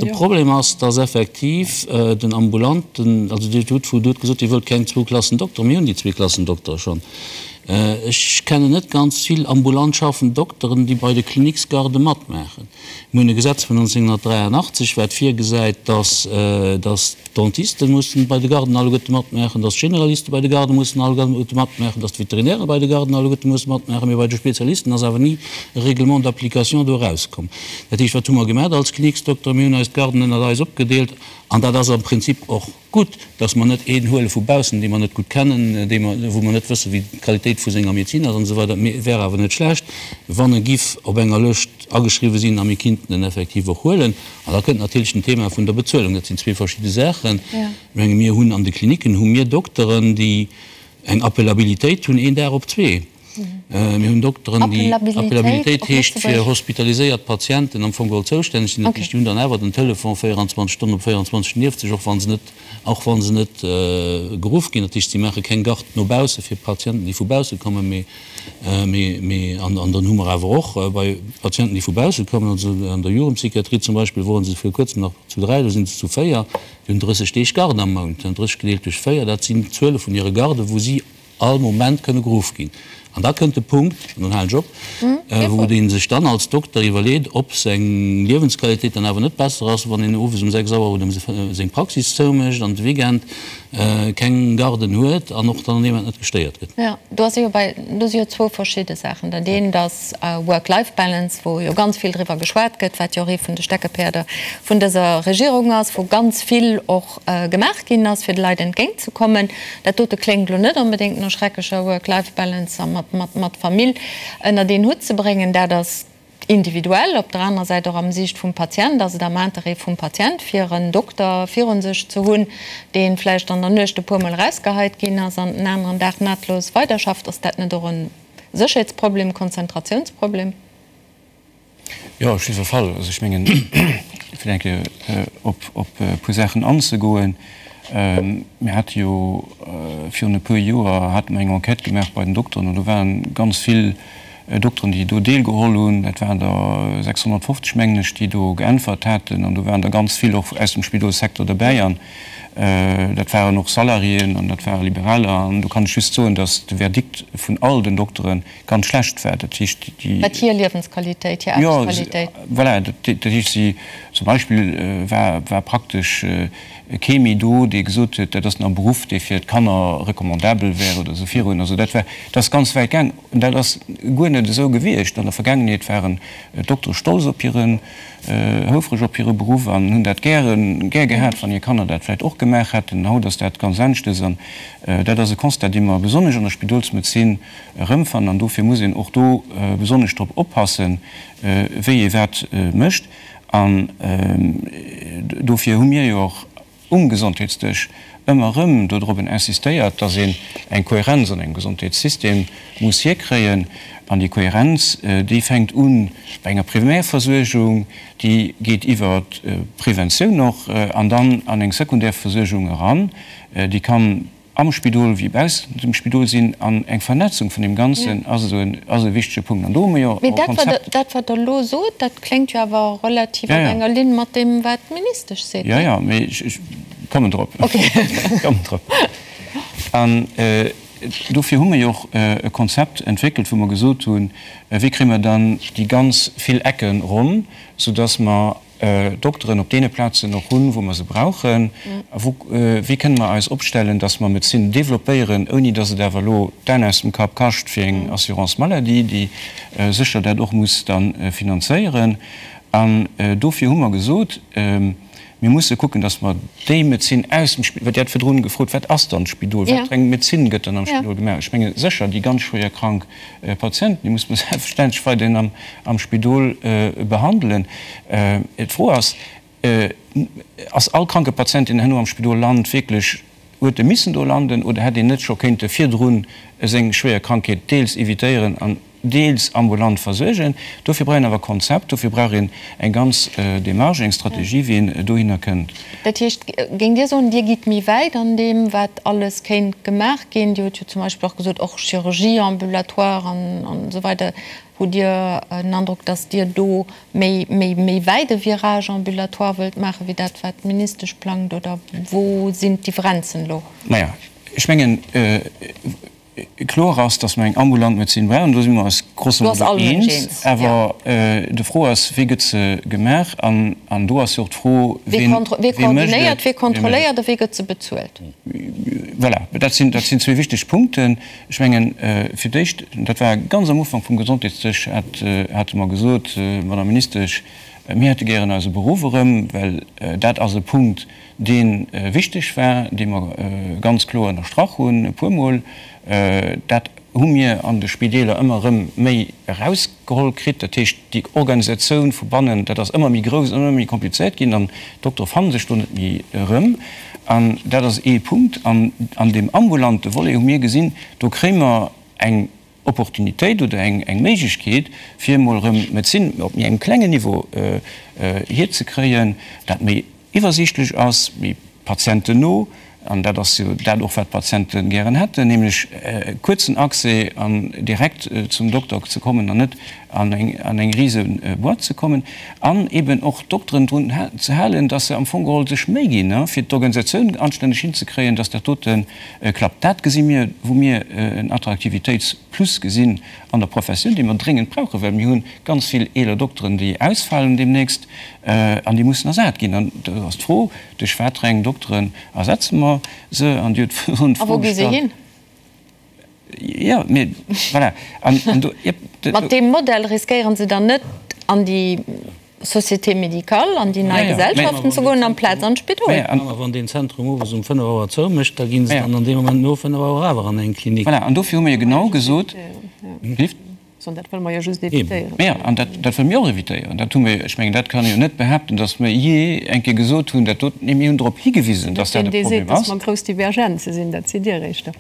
De Problem ass, dass effektiv den ambulanten, also Dir hutt gesot, Dir wëllt keng zwou Klassen Doktere, mir hunn déi zwee Klassen Doktere schonn. Ech kennen net ganz vill ambulant schaffend Dokteren, déi bei de Cliniques-Garde matmaachen. Mir hunn e Gesetz vun 1983, wat virgesäit, dass, dass d'Dentisten mussen bei de Garden alleguerte matmaachen, dass d'Generaliste bei de Garde mussen alleguerte matmaachen, dass d'Veterinäre bei de Garden alleguerte mussen matmaachen, mee bei de Spezialisten ass awer ni e Règlement d'application do erauskomm. Dat heescht, wat hu mer gemaach als Kliniksdokter? Mir hunn eis d'Garden ënnert eis opgedeelt an dat ass am Prinzip och Gutt, dass mer net een huele vu baussen, dee mer net gutt kennen, dee mer, wou mer net wëssen, wéi d'Qualitéit vu senger Medezin ass an esou weider. Mee et wär awer net schlecht, wann e giff op enger Lëscht ageschriwwen sinn a mir kinnten en effektiv och huelen. An da kënnt natierlech den Thema vun der Bezuelung. Dat sinn zwee verschidde Saachen. Ech menge mir hunn an de Klinicken hu mir Dokteren, déi eng Appelabilitéit hunn, een Dag op zwee. Mir hunn Dokteren, déi, Appelabilitéit heescht fir hospitaliséiert Patienten am Fong geholl zoustänneg sinn. Dat heescht, déi hunn dann awer den Telefon 24 Stonnen op 24 nieft sech, och wa se net, och wa se net geruff ginn. Dat heescht, si maache keng Garde no bausse fir Patienten, déi vu bausse kommen, mee, mee, mee, an, an dann hu mer awer och bei Patienten, déi vu bausse kommen, also an der Jugendpsychiatrie zum Beispill woren se vir kuerzem nach zu dräi, elo sinn se zu véier, déi hunn 30 Deeg Garde am Mount. 30 gedeelt duerch véier, dat sinn d'Zuele vun hire Garden, wou si all Moment kënne geruff ginn. An da kënnt de Punkt, an dann halen ech op, wou ee sech dann als Dokter iwwerleet, ob seng Liewensqualitéit dann awer net besser ass, wann een owes um 6 Auer oder um seng Praxis zoumécht an de Weekend keng Garden huet an och dann an deem Moment net gestéiert gëtt. Jo, do ass jo bei, do si jo zwou verschidde Saachen. Dat eent ass Work-Life-Balance, wou jo ganz vill driwwer geschwat gëtt, wat jo och ee vun de Steckepäerder vun dëser Regierung ass, wou ganz vill och gemaach ginn ass, fir de Leit entgéint ze kommen. Dat dote kléngt elo net onbedéngt no schrecklecher Work-Life-Balance a mat Famill ënnert een Hutt ze bréngen. Dat ass individuell. Op der anerer Säit, och am Siicht vum Patient, ass et am Interêt vum Patient, fir en Dokter virun sech ze hunn, dee vläicht an der Nuecht e puermol erausgeheit ginn ass an den aneren Dag nahtlos weiderschafft. Ass dat net och e Sécherheetsproblem, Konzentratiounsproblem? Jo, op jiddwer Fall. Also ech mengen, fir eng Kéier op e puer Saachen anzegoen, Mir hate jo virun e puer Joer hate mer eng Enquête gemaach bei den Dokteren an do ware ganz vill Dokteren, déi do deelgeholl hunn. Dat waren der 650, mengen ech, déi do geäntwert haten an do waren der ganz vill och aus dem Spidolssecteur derbäi an dat waren och Salariéen an dat ware Liberaler. An do kann ech just soen, datt de Verdikt vun all den Dokteren ganz schlecht war. Dat heescht, déi. Wat hir Liewensqualitéit, hir Aarbechtsqualitéit. Jo, voilà, dat heescht, si zum Beispill war, war praktesch kee méi do, dee gesot huet, dat ass nach e Beruff, dee fir d'Kanner recommandabel wär oder esou virun. Also dat war, dat ass ganz wäit gaang. An dat ass guer net esou gewiescht. An der Vergaangenheet waren d'Doktere stolz op hiren, houfreg op hire Beruff an hunn dat gären, gär gehat, wann hir Kanner dat vläicht och gemaach hätten. Haut ass dat ganz aneschtes. An dat ass e Constat, dee mer besonnesch an der Spidolsmedezin erëmfannen an dofir muss een och do besonnesch drop oppassen, wéi ee wat mécht. An dofir hu mir jo och um Gesondheetsdësch ëmmer erëm dodrobben insistéiert, dass een eng Kohärenz an engem Gesondheetssystem muss hierkréien. An déi Kohärenz, déi fänkt u bei enger Primärversuergung, déi geet iwwer d'Preventioun och an dann an eng Sekundärversuergung eran, déi kann am Spidol wéi baussent dem Spidol sinn, an eng Vernetzung vun deem Ganzen ass esou en, ass e wichtege Punkt. An do hu mer jo och e Konzept. Mee dat, wat Der elo sot, dat kléngt jo awer relativ op enger Linn mat deem, wat d'Ministesch seet, Jo, jo, mee ech kommen drop. Ech kommen drop. An dofir hu mer jo och e Konzept entwéckelt, wou mer gesot hunn, Wéi kréie mer dann déi ganz vill Ecke ronn, soudass mer Dokteren op deene Plazen och hunn, wou mer se brauchen? A wou, wéi kënne mer eis opstellen, dass mer Medezin développéieren, ouni dass et awer elo d'Aen aus dem Kapp kascht fir eng Assurance maladie, déi sécher dat och muss da finanzéieren? An dofir hu mer gesot. Mir musse kucken, dass mer déi Medezin aus dem Spidol, well Dir hat virdrun gefrot, wat ass dann d'Spidol, wat fir eng Medezin gëtt dann am Spidol gemaach? Ech menge sécher déi ganz schwéier krank Patienten, déi muss mer selbstverständlech weiderhin am Spidol behandelen. D'Fro ass, Ass all kranke Patient, deen herno am Spidol lant, wierklech, huet e missen do landen oder hätt een net scho kéinte virdrun seng schwéier Krankheet deels evitéieren an deels ambulant versuergen? Dofir brauch een awer e Konzept, dofir brauch een eng ganz Démarche, eng Strategie, wéi een dohinner kënnt. Dat heescht, géingt Dir soen, Dir gitt méi wäit an deem, wat alles kéint gemaach ginn? Dir hutt jo zum Beispill och gesot, och Chirurgie ambulatoire an esou weider. Hutt Dir den Androck, datt Dir do méi, méi, méi wäit e Virage ambulatoire wëllt maachen, wéi dat, wat d'Ministesch plangt? Oder wou sinn d'Differenzen elo? Naja, ech mengen, kloer ass, datt mer eng ambulant Medezin brauchen. Do si mer eis grosso modo eens. Awer de Fro ass, Wéi gëtt se gemaach? An do ass jo och d'Fro, wien mécht et? Wie koordinéiert, wie kontrolléiert a wéi gëtt se bezuelt? Voilà, dat sinn, dat sinn zwee wichteg Punkten. Ech mengen, fir d'éischt, dat war ganz am Ufank vum Gesondheetsdësch, hate mer gesot, Madame Ministesch, mir hätte gären eise Beruff erëm, well dat ass e Punkt, dee wichteg war, dee mer ganz kloer ënnerstrach hunn e puermol. Dat hu mir an de Spideeler ëmmer erëm méi erausgeholl kritt. Dat heescht, déi Organisatioun vu bannen, dat ass ëmmer méi grouss, ëmmer méi komplizéiert ginn an d'Doktere fanne sech do net méi erëm. An dat ass ee Punkt. An an deem ambulante Volet hu mir gesinn, do kréie mer eng Opportunitéit oder eng Méiglechkeet, fir emol erëm d'Medezin op méi engem klengen Niveau hierzekréien, dat méi iwwersiichtlech ass, méi patientenno, an dat ass jo dat och, wat d'Patiente gären hätten, nämlech kuerzen Accès an direkt zum Dokter ze kommen an net an eng an eng rise Boîte ze kommen, an eben och d'Dokteren drun ze halen, dass se am Fong geholl sech Méi ginn, fir d'Organisatioun anstänneg hinzekréien, dass dat dote klappt. Dat gesi mir, wou mir en Attraktivitéitsplus gesinn an der Professioun, déi mer dréngend brauchen, well mir hu ganz vill eeler Dokteren, déi ausfalen deemnächst an déi mussen ersat ginn. An do ass d'Fro, Duerch wat fir eng Dokteren ersetze mer se? An Dir hutt virun d'Fro gestallt. A wou gi se hin? Jo, mee voilà. An, an do, jep. Mat deem Modell riskéiere se dann net, an déi Société médicale, an déi nei Gesellschaften ze goen, amplaz an d'Spidol? A wann deen Zentrum owes um 5 Auer zoumécht, da gi se dann an deem Moment no 5 Auer awer an eng Klinik. Voilà, an dofir hu mir jo genau gesot, Sondern dat wëlle mer jo just évitéieren. Jo, an dat, dat wëlle mir och évitéieren. Dat hu mir, ech mengen, dat kann ee jo net behaapten, datt mir jee eng Kéier gesot hunn, dat dot, nee, mir hunn drop higewisen, datt dat e Deen, dee seet, Problem datt ass. mer grouss Divergenze sinn, dat sidd Dir éischter.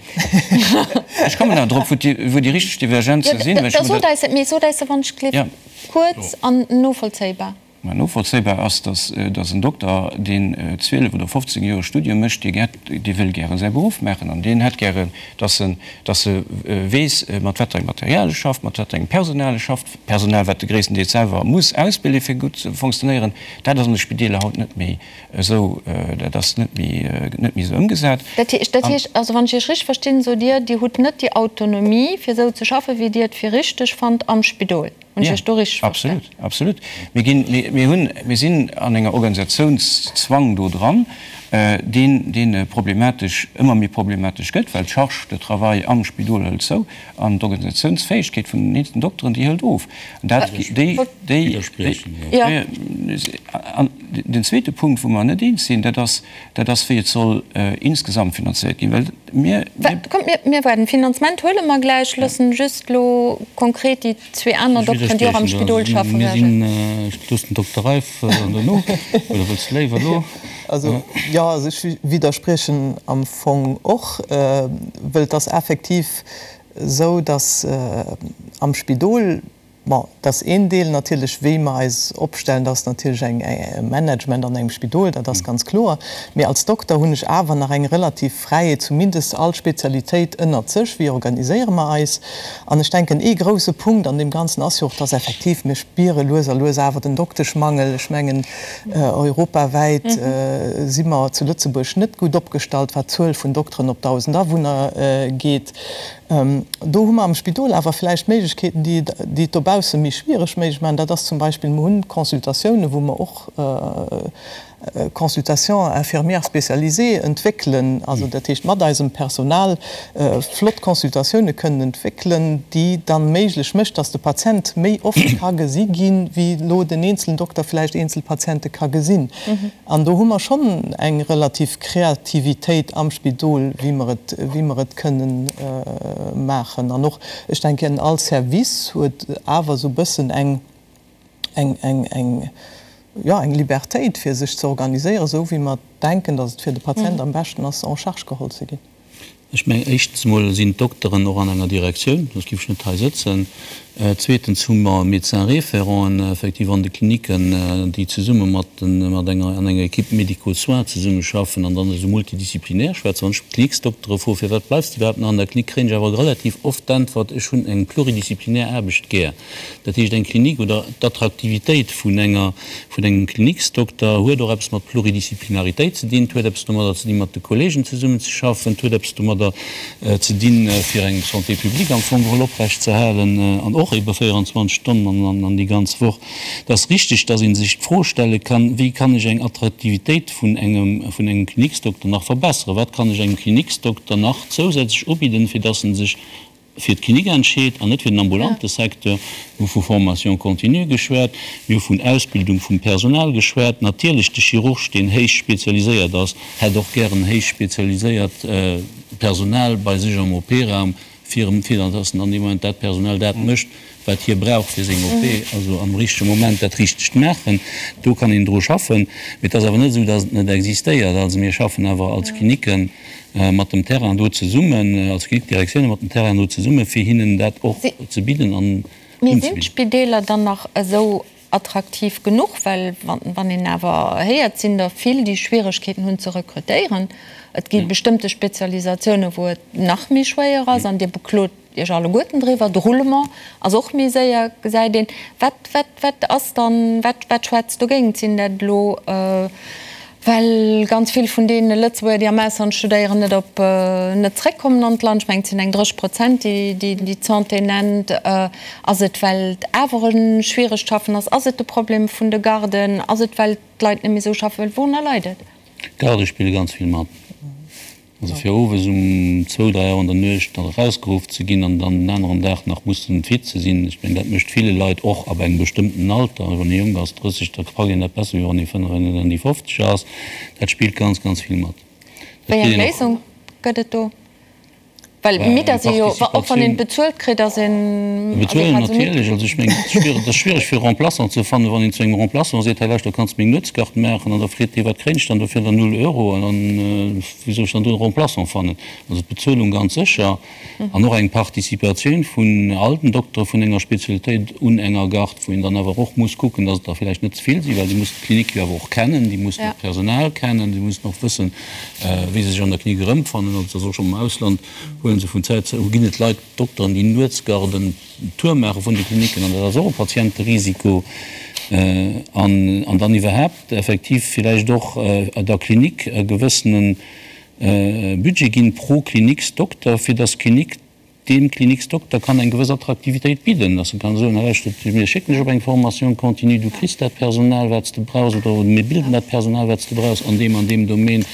Ech kommen nach drop, wou déi, wou déi richteg Divergenze sinn, well ech Da sot eis et, mee sot eis se wann ech gleef kuerz an novollzéibar. Mä novollzéibar ass, datt datt en Dokter, deen 12 oder 15 Joer Studium mécht, dee gär, dee wëll gäre säi Beruff maachen an deen hätt gären, datt en, datt e weess, mat wat fir engem Material e schafft, mat wat fir engem Personal e schafft, Personal, wat e gréisstendeels selwer muss ausbilden, fir gutt ze fonctionnéieren. Dat ass an de Spideeler haut net méi esou, dat ass net méi, net méi esou ëmgesat. Dat heescht, dat heescht also, wann ech Iech richteg verstinn, sot Dir, Dir hutt net déi Autonomie, fir esou ze schaffen, wéi Dir et fir richteg fannt am Spidol. Hunn ech Iech do richteg verstan? Absolut, absolut. Mir ginn, mir, mir hunn, mir sinn an enger Organisationszwang do dran, deen, deen problematesch, ëmmer méi problematesch gëtt, well d'Charge de travail am Spidol hëlt zou an d'Organisationsfäegkeet vun den eenzelnen Dokteren, déi hëlt of. An dat, déi, déi, déi, an den zweete Punkt, wou mer net eens sinn, dat ass, dat ass, wéi et soll insgesamt finanzéiert ginn, well mir, mir. Kommt, mir, mir waarden. Finanzement huele mer gläich, loossen just elo konkret déi zwee aner Dokteren, déi och am Spidol schaffen, Mir sinn, ech loossen den Dokter Reiff an dono, oder wëlls de léiwer elo? Also, jo, also ech widderspriechen am Fong och, wëll et ass effektiv esou, datt am Spidol, Bon, dat ass een Deel natierlech, wéi mer eis opstellen. Dat ass natierlech eng e Management an engem Spidol, dat ass ganz kloer. Mee als Dokter hunn ech awer nach eng relativ Fräiheet, zumindest all Spezialitéit ënnert sech, wéi organiséiere mer eis. An ech denken, ee grouse Punkt an deem Ganzen ass jo och, dass effektiv, mir spiere lues a lues awer den Dokteschmangel. Ech mengen, europawäit si mer zu Lëtzebuerg net gutt opgestallt, wat d'Zuel vun Dokteren op 1.000 Awunner geet. Do hu mer am Spidol awer vläicht Méiglechkeeten, déi et dobaussen. bausse méi schwiereg méiglech maachen, dat ass zum Beispill, mer hunn Consultatiounen, wou mer och Consultations infirmières spécialisées entwéckelen, also dat heescht mat eisem Personal flott Consultatioune kënnen entwéckelen, déi dann méiglech mécht, dass de Patient méi oft ka gesi ginn, wéi elo den eenzelen Dokter vläicht eenzel Patiente ka gesinn. An do hu mer schonn eng relativ Kreativitéit am Spidol, wéi mer et, wéi mer et kënnen maachen. An och, ech denken, all Service huet awer esou e bëssen eng, eng, eng, eng, jo, eng Libertéit, fir sech ze organiséieren, esou wéi mer denken, datt et fir de Patient am beschten ass, en charge geholl ze ginn. Ech mengen, éischtens emol sinn d'Dokteren och an enger Direktioun, soss géif ech net hei sëtzen. Zweetens hu mer Médecins-référenten effektiv an de Klinicken, déi zesumme mat den, mat enger, an enger Équipe médico-soins zesummeschaffen an dann esou multidisziplinär schwätzen. Wann ech d'Kliniksdoktere froe firwat bleifs de iwwerhaapt nach an der Klinik, kréien ech awer relativ oft d'Äntwert, ech hunn eng pluridisziplinär Aarbecht gär. Dat heescht, eng Klinik oder d'Attraktivitéit vun enger, vun engem Kliniksdokter huet och eppes mat Pluridisziplinaritéit ze dinn, et huet eppes domadder ze dinn, mat de Kollegen zesummenzeschaffen, et huet eppes domadder ze dinn, fir eng Santé publique am Fong geholl oprechtzeerhalen an och ebe 24 Stonnen an an déi ganz Woch. Et ass richtig, dass ee sech d'Fro stelle kann, Wéi kann ech eng Attraktivitéit vun engem, vun engem Kliniksdokter nach verbessern? Wat kann ech engem Kliniksdokter nach zousätzlech ubidden, fir dass en sech fir d'Klinik entscheet an net fir den ambulante Secteur. Mir hu vu Formation continue geschwat, mir hu vun Ausbildung vum Personal geschwat. Natierlech, de Chirurg, deen héich spezialiséiert ass, hätt och gären héich spezialiséiert Personal bei sech am OP-Raum, fir fir dass en an deem Moment dat Personal dat mécht, wat hie brauch fir seng OP, also am richtege Moment dat Richtegt maachen. Do kann een dru schaffen. Mee et ass awer net esou, dass et net existéiert. Also mir schaffen awer als Klinicken mat dem Terrain do zesummen, als Klinikdirektioune mat dem Terrain do zesummen, fir hinnen dat och ze bidden an Mee sinn unzebidden. d'Spideeler dann nach esou attraktiv genuch? Well wann een awer héiert, sinn der vill, déi Schwieregkeeten hunn ze rekrutéieren. Et gi bestëmmte Spezialisatiounen, wou et nach méi schwéier ass an Dir beklot Iech alleguerten driwwer. De Roulement ass och méi séier, gesäit een. Wat, wat, wat ass dann, wat, wat schwätzt dogéint? Sinn dat elo, well ganz vill vun deene Lëtzebuerger, déi am Ausland studéieren, net op, net zréckkommen an d'Land? Ech mengen, et sinn eng 30 Prozent, déi, déi, déi d'Santé nennt. Ass et, well et awer e schwieregt Schaffen ass? Ass et de Problem vun de Garden? Ass et, well d'Leit net méi esou schaffe wëllen? Wourunner leit et? D'Garde spille ganz vill mat. Also fir owes um zwou, dräi Auer an der Nuecht nach erausgeruff ze ginn an dann den aneren Dag nach mussen fit ze sinn, ech mengen, dat mécht ville Leit och ab engem bestëmmten Alter, wann ee jonk ass, 30, da packt een dat besser, wéi wann ee 45 an déi 50 ass. Dat spillt ganz, ganz vill mat. Dat Wéi eng kritt een och. Léisung gëtt et do? Well midd ass ee jo, och wann een bezuelt kritt, ass een, ass ee Bezuelen quasi midd. natierlech. Also ech mengen, et ass schwiereg, et ass schwiereg fir e Remplaçant ze fannen, wann een zu engem Remplaçant seet, hei lauschter, kanns de meng Nuetsgard maachen? An da freet dee, wat kréien ech dann dofir? Dann null Euro. An dann, wéi soll ech dann do e Remplaçant fannen? Also d'Bezuelung ganz sécher an och eng Participatioun vun all den Doktere vun enger Spezialitéit un enger Gard, wou een dann awer och muss kucken, dass et der vläicht net ze vill sinn, well déi mussen d'Klinik jo awer och kennen, déi mussen och d'Personal kennen, déi mussen och wëssen, wéi se sech an der Klinik erëmfannen. Also et ass och schonn am Ausland, huele se vun Zäit zu ginn et Leit, Dokteren, déi Nuetsgarden Tour maache vun de Kliniken an dat ass och e Patienterisiko. An an dann iwwerhaapt effektiv villäicht och der Klinik e gewëssene Budget ginn pro Kliniksdokter, fir datt d'Klinik Deem Kliniksdokter kann eng gewëss Attraktivitéit bidden, dass e kann soen, hei lauschtert, mir schécken dech op eng Formation continue, du kriss dat Personal, wat s de brauchs, oder mir bilden dat Personal, wat s de brauchs an deem an deem Domaine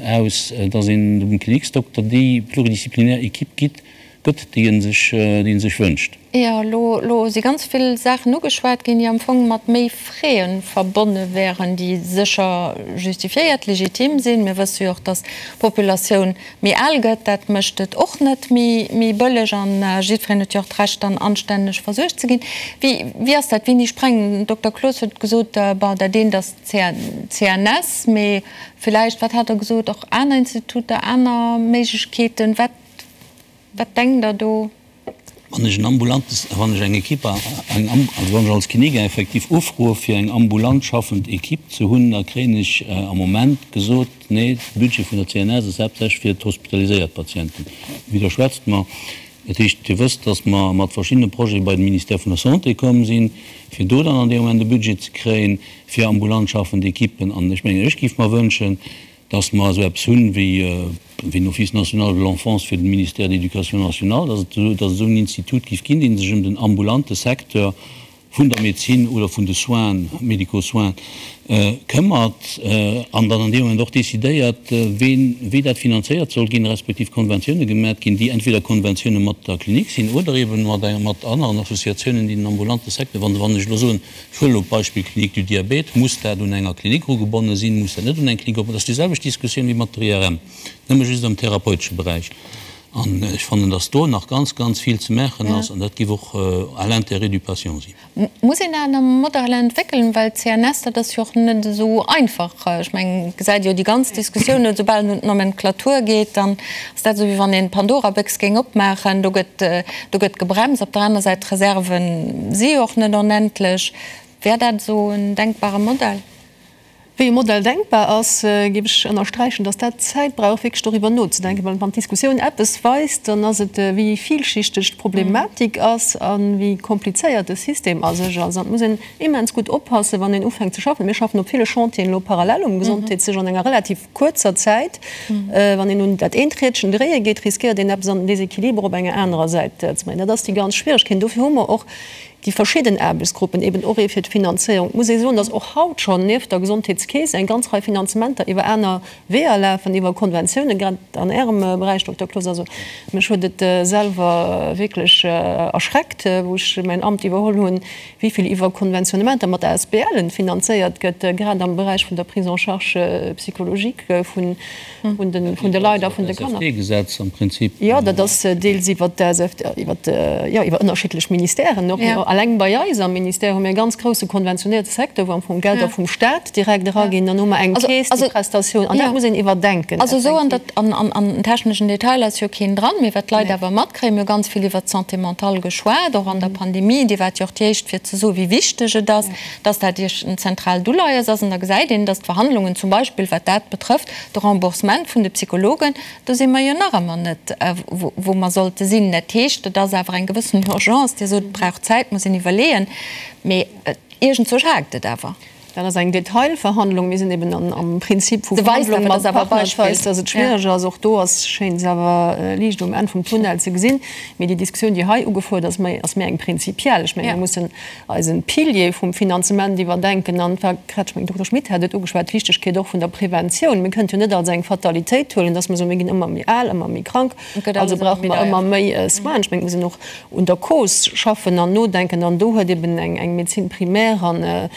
aus, dass een dem Kliniksdokter déi pluridisziplinär Equipe gitt, gëtt, déi e sech, déi e sech wënscht. Jo, elo, elo si ganz vill Saachen ugeschwat ginn, déi am Fong mat méi Frais verbonne wären, déi sécher justifiéiert, legitim sinn. Mir wësse jo och, dass d'Populatioun méi al gëtt, dat mécht et och net méi bëlleg an jiddwereen huet jo och d'Recht dann anstänneg versuergt ze ginn. Wéi, wéi ass dat? Wéini sprengen? Den Dokter Cloos huet gesot, bon, dat eent ass d'CNS, mee villäicht, wat hat Der gesot, och aner Instituter, aner Méiglechkeeten. Wat, wat denkt Der do? Wann ech en ambulante, wann ech eng Equipe, eng, also wann ech als Klinik effektiv ufroe fir eng ambulant schaffend Equipe ze hunn, da kréien ech am Moment gesot, nee, de Budget vun der CNS ass haaptsächlech fir d'hospitaliséiert Patienten. Widderschwätzt mer. Dat heescht, Dir wësst, datt mer mat verschiddene Projete bei de Ministère vun der Santé komm sinn, fir do dann an deem Moment e Budget ze kréien fir ambulant schaffend Equipen. An ech mengen, ech géif mer wënschen, Dass mer esou eppes hunn wéi en Office national de l'enfance fir de Ministère de l'Éducation nationale, dass et dass et esou en Institut géif ginn, dee sech ëm den ambulante Secteur vun der Medezin oder vun de Soins, médicaux soins, këmmert an dann an deem Moment och décidéiert, ween, wéi dat finanzéiert soll ginn, respektiv Konventioune gemat ginn, déi entweder Konventioune mat der Klinik sinn oder eeben mat mat aneren Associatiounen, déi den ambulante Secteur, wann wann ech elo soen, ech huelen elo d'Beispill Clinique du Diabète, muss dat un enger Klinik erugebonne sinn, muss dat net un eng Klinik erugebonne, dat ass déi selwecht Diskussioun wéi mat der IRM, nëmme just am therapeutesche Beräich. An ech fannen, dass do nach ganz, ganz vill ze maachen ass an dat géif och à l'intérêt du patient sinn. Muss een aner Modeller entwéckelen, well d'CNS, dat ass jo och net esou einfach. Ech mengen, et gesäit ee jo déi ganz Diskussioun, esoubal et un d'Nomenclature geet, dann ass dat esou, wéi wann een d'Pandora-Béchs géing opmaachen. Do gëtt, do gëtt gebremst. Op der aner Säit, d'Reserve si jo och net onendlech. Wär dat esou en denkbare Modell? Wéi e Modell denkbar ass, géif ech ënnersträichen, dass dat Zäit brauch, wierklech doriwwer nozedenken. Well wann d'Diskussioun eppes weist, dann ass et, wéi villschichteg d'Problematik ass a wéi komplizéiert de System a sech ass. An et muss een immens gutt oppassen, wann een ufänkt ze schaffen. Mir schaffen op ville Chantieren elo parallel um Gesondheetsdësch an enger relativ kuerzer Zäit. Wann een un dat eent Riedchen dréie geet, riskéiert een eppes an den Déséquilibre op enger anerer Säit ze bréngen. Dat ass déi ganz Schwieregkeet. Dofir hu mer och Déi verschidden Aarbechtsgruppen, eben och ee fir d'Finanzéierung. Et muss ee soen, datt och haut schonn nieft der Gesondheetskeess eng ganz Rei Finanzementer iwwer aner Weeër lafen, iwwer Konventiounen, grad an Ärem Beräich, Dokter Cloos. Also mech huet et selwer wierklech erschreckt, wou ech mäin Amt iwwerholl hunn, wéi vill iwwer Konventionnementer mat ASBLen finanzéiert gëtt, grad am Beräich vun der Prise en charge psychologique vun vun de, vun de Leit a vun de Kanner. SFT-Gesetz am Prinzip. Jo, dat ass deels iwwer d'SFT, iwwer, jo, iwwer ënnerschiddlech Ministèren och. Alleng bei eis am Ministère hu mir e ganz grousse konventionéierte Secteur, wou am Fong Gelder vum Stat direkt eraginn. Dann hu mer eng Keess, déi Prestatioun, an dat muss een iwwerdenken. Also esou an der, an, an, an den techneschen Detailer ass jo keen dran, mee wat d'Leit awer matkréien, mir hu ganz vill iwwert d'Santé mentale geschwat, och an der Pandemie, Dir waart jo och déi éischt fir ze soen, wéi wichteg et ass, dass dat Iech en zentraalt Uleies ass. An da gesäit een, dass d'Verhandlungen zum Beispill, wat dat betrëfft, de Remboursement vun de Psychologen, do si mer jo nach ëmmer net, wou mer sollte sinn. Dat heescht, et ass awer eng gewëssen Urgence. Dir sot, et brauch Zäit, muss een iwwerleeën, mee iergendzwousch haakt et awer. Dat ass eng Detailverhandlung. Mir sinn eben am Prinzip vu Verhandlung mat Partner. Et weist, dass et schwiereg ass. Och do ass, schéint es awer Liicht um Enn vum Tunnel ze gesinn. Mee déi Diskussioun, déi hei ugefuert ass, ass méi eng prinzipiell. Ech mengen, mir mussen eisen Pilier vum Finanzement iwwerdenken an et war grad, ech mengen, Dokter Schmit hat et ugeschwat, d'Wichtegkeet och vun der Preventioun. Mir kënnt jo net als eng Fatalitéit huelen, dass mer soen, mir ginn ëmmer méi al, ëmmer méi krank, also brauche mer ëmmer méi Soinen. Ech mengen, et muss een och un der Cause schaffen an nodenken an do huet eben eng Médecine primaire an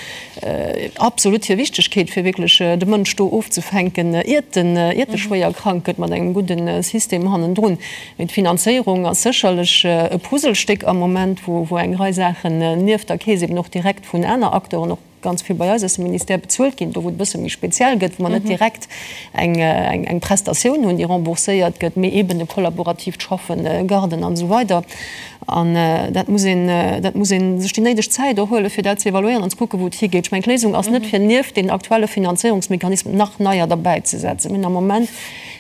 absolut hir Wichtegkeet, fir wierklech de Mënsch do ofzefänken, iert en, iert e schwéier krank gëtt, mat engem gudde System hannendrun. Mee d'Finanzéierung ass sécherlech e Puzzlestéck am Moment, wou eng Rei Saachen nieft der Keess eben och direkt vun aner Acteuren, och ganz vill bei eis aus dem Ministère, bezuelt ginn. Do wou et e bësse méi speziell gëtt, wou mer net direkt eng Prestatioun hunn, déi rembourséiert gëtt, mee eben e kollaboratiivt Schaffen, Garden an esou weider. An dat muss een, dat muss ee sech déi néideg Zäit och huelen, fir dat ze evaluéieren an ze kucken, wou et higeet. Ech mengen, d'Léisung ass net, fir nieft den aktuelle Finanzéierungsmechanismen nach neier derbäizesetzen. Mir hunn am Moment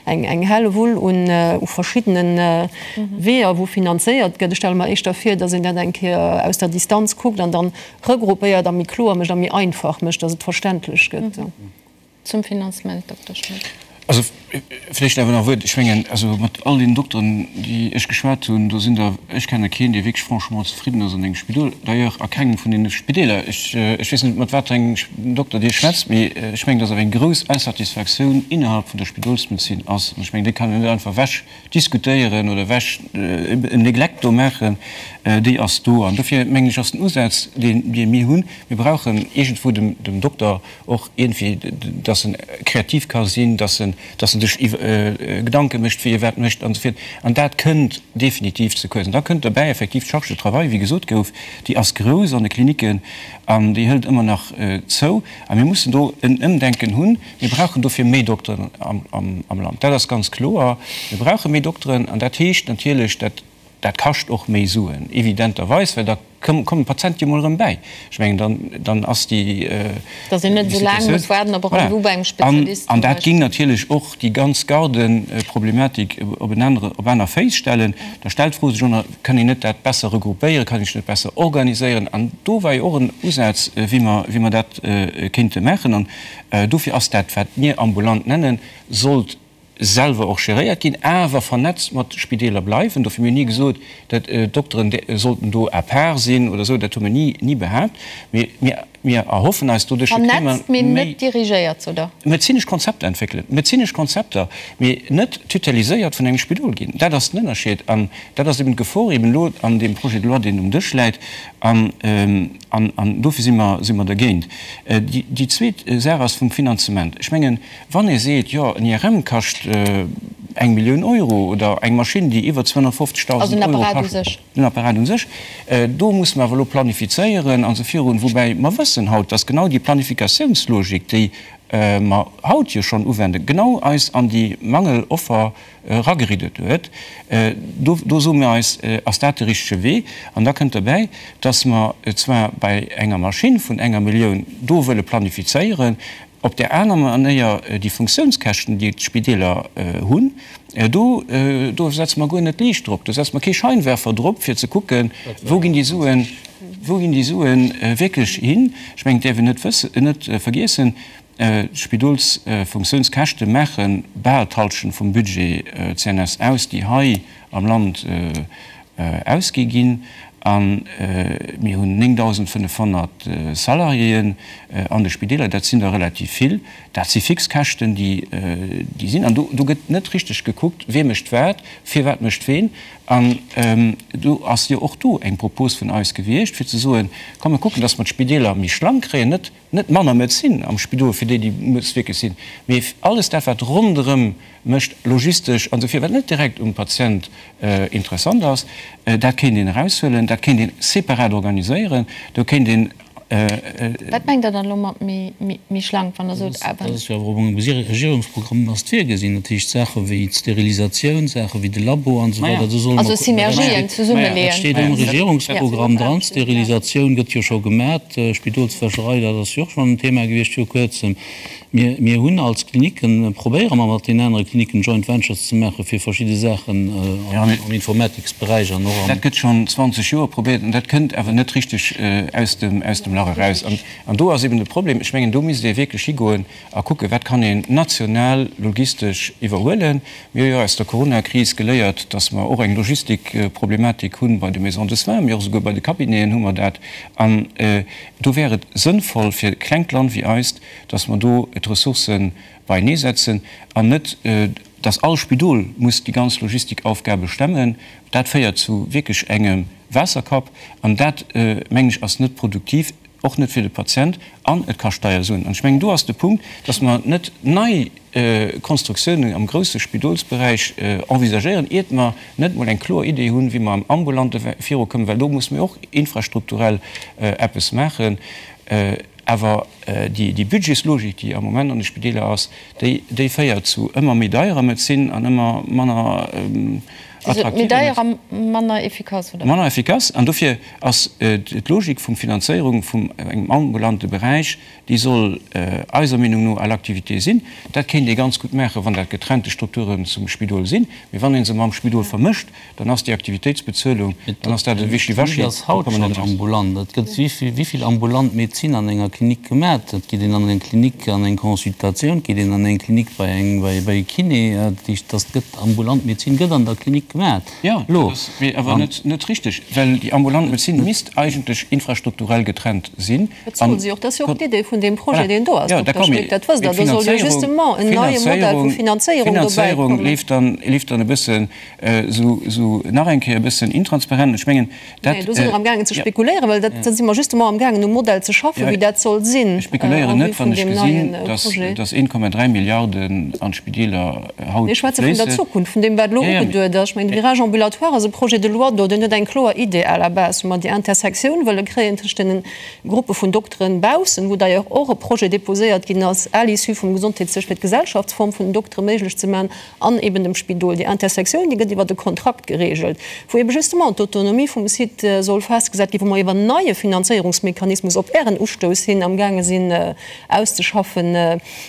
eng Hellewull un u verschiddene Weeër, wou finanzéiert gëtt. Ech stelle mer éischter vir, datt een dat eng Kéier aus der Distanz kuckt an dann regroupéiert a méi kloer mécht a méi einfach mécht, datt et verständlech gëtt. Zum Finanzement, Dokter Schmit. Also vläicht awer nach e Wuert. Ech mengen, also mat all deenen Dokteren, déi ech geschwat hunn, do sinn der, ech kenne keen, dee wierklech franchement zefridden ass an engem Spidol, d'ailleurs a kengem vun deene Spideeler. Ech weess net, mat wat fir engem Dokter Dir schwätzt, mee ech mengen, dass awer eng grouss Insatisfaktioun innerhalb vun der Spidolsmedezin ass. An ech mengen, déi kann een net einfach ewech diskutéieren oder ewech en Neglect do maachen. Déi ass do. An dofir mengen ech, ass den Usaz, dee mir hunn, mir brauchen iergendwou dem Dokter och iergendwéi, dass en kreativ ka sinn, dass en, dass en sech Gedanke mécht, wéi e wat mécht an esou virt. An dat kënnt definitiv ze kuerz. An da kënnt derbäi effektiv d'Charge de travail, wéi gesot gouf, déi ass grouss an de Klinicken an déi hëlt ëmmer nach zou. A mir mussen do en Ëmdenken hunn. Mir brauchen dofir méi Dokteren am Land. Dat ass ganz kloer. Mir brauche méi Dokteren an dat heescht natierlech, dat. dat kascht och méi Suen, evidenterweis, well da kommen d'Patiente jo mol erëm bäi. Ech mengen, dann, dann ass déi. Dass een net esou laang muss waarden op e Rendez-vous bei engem Spezialist zum An dat géing natierlech och déi ganz Gardeproblematik op en anere, op aner Féiss stellen. Da stellt d'Fro sech och, Kann een net dat besser regroupéieren, kann een sech net besser organiséieren? An do war jo och en Usaz, wéi mer, wéi mer dat kéinte maachen. An dofir ass dat, wat mir ambulant nennen, sollt selwer och geréiert ginn, awer vernetzt mat Spideeler bleiwen. Dofir, mir hunn ni gesot, dat d'Dokteren sollten do à part sinn oder esou, dat hu mir ni, ni behaapt. Mee mir, mir erhoffen eis doduerch, kréie mer Vernetzt, mee méi. net dirigéiert, sot Der? Medezinesch Konzepter entwéckelen, medezinesch Konzepter, mee net tuteliséiert vun engem Spidol ginn. Dat ass den Ënnerscheed an dat ass eben d'Gefor eben elo an deem Projet de loi, deen um Dësch läit. An, an, an dofir si mer, si mer dergéint. Déi, déi zweet Saach ass vum Finanzement. Ech mengen, Wann ee seet, jo, en IRM kascht eng Millioun Euro oder eng Maschinn, déi iwwer 250.000 Euro kascht, den Apparat u sech, do musse mer awer elo planifizéieren an esou virun. Woubäi mer wëssen haut, dass genau déi Planifikatiounslogik, déi mer haut jo schonn uwenden, genau eis an déi Mangeloffer erageriddet huet. Do, do soe mir eis, ass dat de richtege Wee? An da kënnt derbäi, dass mer zwar bei enger Maschinn vun enger Millioun do wëlle planifizéieren, Op där aner Manéier, déi Funktiounskäschten, déi d'Spideeler hunn, do, do setze mer guer net d'Liicht drop, do setze mer kee Scheinwerfer drop, fir ze kucken, wou ginn déi Suen, wou ginn déi Sue wierklech hin. Ech mengen, et däerf een net wëssen, net vergiessen, D'Spidolsfunktiounskäschte maache bal d'Hallschent vum Budget CNS aus, déi hei am Land ausgi ginn. A mir hunn 9.500 Salariéen an de Spideeler. Dat sinn der relativ vill. Dat si fix Käschten, déi sinn. An do gëtt net richteg gekuckt, wie mécht wat, firwat mécht ween. An do ass jo och do eng Propos vun eis gewiescht, fir ze soen, Komm mir kucken, datt mer d'Spideeler méi schlank kréien, net Net manner Medezin am Spidol fir déi, déi muss wierklech sinn, mee alles dat, wat ronderëm mécht, logistesch an esou vir, wat net direkt um Patient interessant ass, dat kéint een eraushuelen, dat kéint een separat organiséieren, do kéint een. Wat mengt Der dann elo mat méi schlank, wann Der sot awer? Dat ass jo awer och am Regierungsprogramm ass et virgesinn, dat heescht Saache wéi d'Sterilisatioun, Saache wéi de Labo an esou weider, do solle mer. Also Synergien zesummeleeën. Dat steet am Regierungsprogramm dran. D'Sterilisatioun gëtt jo scho gemat. D'Spidolswäscherei, dat ass jo och schonn en Thema gewiescht viru Kuerzem. Mir, mir hunn als Klinicken, probéiere mer mat den anere Klinicken Joint Ventures ze maache fir verschidde Saachen am Informatiksberäich an och am. Dat gëtt schonn 20 Joer probéiert an dat kënnt awer net richteg aus dem, aus dem Lach eraus. An, an do ass eben de Problem, ech mengen, do misst ee wierklech higoen a kucken, wat kann een national logistesch iwwerhuelen. Mir hu jo aus der Coronakris geléiert, dass mer och eng Logistikproblematik hu bei de Maisons de soins, mee och esouguer bei de Cabineten hu mer dat. An do wär et sënnvoll fir e klengt Land wéi eist, dass mer do d'Ressourcë beieneesetzen an net, dass all Spidol muss déi ganz Logistikaufgabe stemmen. Dat féiert zu wierklech engem Waasserkapp an dat, mengen ech, ass net produktiv. Och net fir de Patient an et kascht deier Suen. An ech mengen, do ass de Punkt, dass mer net nei Konstruktiounen am grousse Spidolsberäich envisagéieren, iert mer net emol eng kloer Idee hunn, wéi mer am Ambulante virukommen, well do musse mir och infrastrukturell eppes maachen. Awer déi Budgetslogik, déi am Moment an de Spideeler ass, déi féiert zu ëmmer méi deierer Medezin an ëmmer manner attraktiver. Méi deier a manner efficace, oder? Manner efficace. An dofir ass d'Logik vum Finanzéierung vum engem ambulante Beräich, déi soll eiser Meenung no à l'activité sinn. Dat kéint ee ganz gutt maachen, wann dat getrennte Strukturen zum Spidol sinn. Mee wann ee se mam Spidol vermëscht, dann ass déi Aktivitéitsbezuelung, dann ass dat e Wischiwaschi. D'Klinik ass haut schonn ambulant. Et gëtt wéi vill ambulant Medezin an enger Klinik gemat? Et geet een an eng Klinik an eng Consultatioun, et geet een an eng Klinik bei eng bei e Kiné. Dat heescht, dass gëtt ambulant Medezin gëtt an der Klinik gemat. Jo, dat ass mee awer net net richteg, well déi ambulant Medezin misst eigentlech infrastrukturell getrennt sinn. Dat soll se och. Dat ass jo och d'Idee vun deem Projet, deen do ass, Dokter Schmit. Dat wësst Der. Do soll jo justement en neie Modell vu Finanzéierung dobäi kommen. D'Finanzéierung leeft dann e bëssen esou nach eng Kéier e bëssen intransparent. Ech mengen, dat. Nee, do si mer amgaangen ze spekuléieren, well dat, da si mer justement amgaangen um Modell ze schaffen, wéi dat soll sinn. Ech spekuléieren net, wann ech gesinn, dass, dass 1,3 Milliarden an d'Spideeler haut Mir schwätze vun der fléissen. Zukunft, vun deem, wat elo ugeduet ass. mengen, de Virage ambulatoire ass e Projet de loi do, deen huet eng kloer Idee à la base, wou mer déi Intersektioun wëlle kréien tëscht deene Gruppe vun Dokteren baussen, wou d'ailleurs och e Projet déposéiert ginn ass à l'issue vum Gesondheetsdësch, fir d'Gesellschaftsform vun den Doktere méiglech ze maachen, an eben dem Spidol. Déi Intersektioun, déi gëtt iwwert e Kontrakt geregelt, wou eben justement d'Autonomie vum Site soll festgesat ginn, wou mer iwwer en neie Finanzéierungsmechanismus op Ären Ustouss hin amgaange sinn auszeschaffen.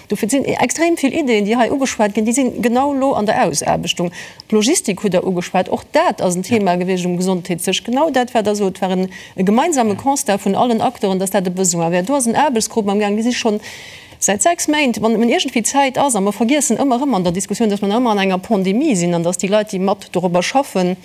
Dofir, et sinn extrem vill Ideeën, déi hei ugeschwat ginn, déi sinn genau elo an der Ausaarbechtung. D'Logistik hutt Der ugeschwat, och dat ass en Thema gewiescht um Gesondheetsdësch. Genau dat, wat Der sot, war e gemeinsame Constat vun allen Acteuren, dass dat e Besoin wär. Do ass en Aarbechtsgrupp amgaangen, déi si schonn säit 6 Méint, wann et iergendwéi Zäit ass, a mer vergiessen ëmmer erëm an der Diskussioun, dass mer nach ëmmer an enger Pandemie sinn an dass déi Leit, déi mat dorobber schaffen,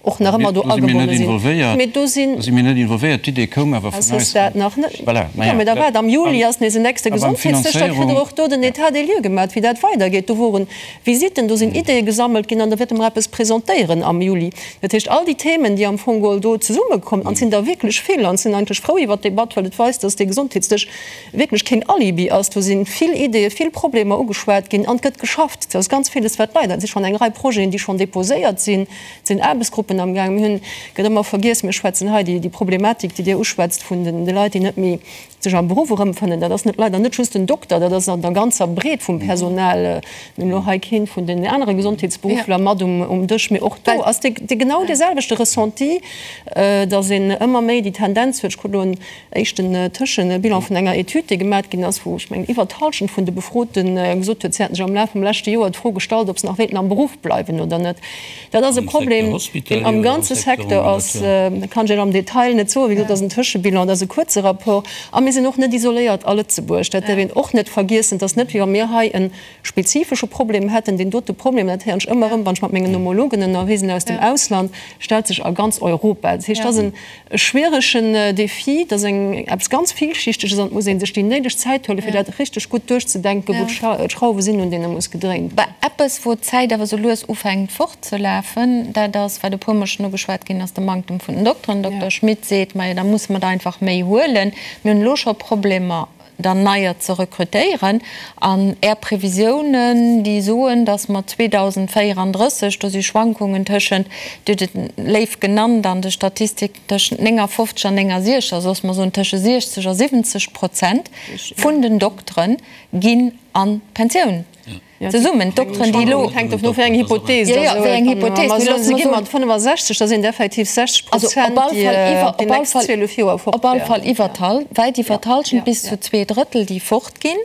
och nach ëmmer do agebonne sinn. Mee do sinn. Do si mir net involvéiert. D'Idee koum awer vun eis. Dat nach net. Voilà, ma jo. Mee da waart, am Juli ass nees en nächste Gesondheetsdësch, da kritt Der och do den État des lieux gemaat, wéi dat weidergeet. Do woren Visitten, do sinn Ideeë gesammelt ginn an da wäerte mer eppes presentéieren am Juli. Dat heescht, all déi Themen, déi am Fong geholl do zesummekommen, an et sinn der wierklech vill, an ech sinn eigentlech frou iwwert d'Debatt, well et weist, dass dee Gesondheetsdësch wierklech keen Alibi ass. Do si vill Ideeë, vill Problemer ugeschwat ginn an et gëtt geschafft. Et ass ganz villes, wat leider, et si schonn eng Rei Projeten, déi schonn déposéiert sinn, et sinn Aarbechtsgruppen amgaangen. Mir hunn, gëtt ëmmer vergiess, mir schwätzen hei déi Problematik, déi Dir uschwätzt vun de Leit, déi net méi sech am Beruff erëmfënnen, dat ass net, leider net just den Dokter, dat ass an der ganzer Breet vum Personal. Mir hunn elo hei kee vun den anere Gesondheetsberuffler mat um Dësch, mee och do ass dee genau dee selwechte Ressenti, datt een ëmmer méi déi Tendenz huet, ech krut elo en éischten Tëschebilan vun enger Etüd, déi gemat ginn ass, wou, ech mengen, iwwer d'Hallschent vun de Befrote gesot huet, si hätten sech am Laf vum leschte Joer d'Fro gestallt, ob se nach wéilten am Beruff bleiwen oder net. Dat ass e Problem, deen am ganze Secteur ass. Dat kann ech Iech am Detail net soen. Wéi gesot, dat ass en Tëschebilan, dat ass e kuerze Rapport. A mir sinn och net isoléiert a Lëtzebuerg. Dat däerf een och net vergiessen. Et ass net, wéi wa mir hei e spezifesche Problem hätten. Deen dote Problem, dat héieren ech ëmmer erëm, wann ech mat mengen Homologen ënnerwee sinn aus dem Ausland, stellt sech a ganz Europa. Dat heescht, dat ass e schwieregen Défi, dat ass eng eppes ganz Villschichteges an et muss ee sech déi néideg Zäit huelen, fir dat richteg gutt duerchzedenken, wou d'Schrauwe sinn, un deene muss gedréint ginn. Eppes, wou d'Zäit awer sou lues ufänkt fortzelafen, dat ass, wat e puermol schonn ugeschwat ginn ass, de Manktem vun den Dokteren. Dokter Schmit seet, Majo, da musse mer der einfach méi huelen. Mir hunn elo scho Problemer, der neier ze rekrutéieren. An Är Previsiounen, déi soen, datt mer 2034, do si Schwankungen tëschent, Dir hutt et léif genannt an de Statistiken, tëschent 59 an 69, also datt mer soen tësche 60 a 70 Prozent vun den Doktere ginn an d'Pensioun. Zesummen, d'Dokteren, déi elo. Hänkt dovun of, wéi eng Hypothees Jo, jo, wéi eng Hypothees. Wa mer soen, se gi mat 65, da sinn et effektiv 60 Prozent, déi déi nächst 12 Joer fort Op alle Fall iwwer d'Hal, wäit iwwer d'Hallschent, bis zu 2/3, déi fortginn.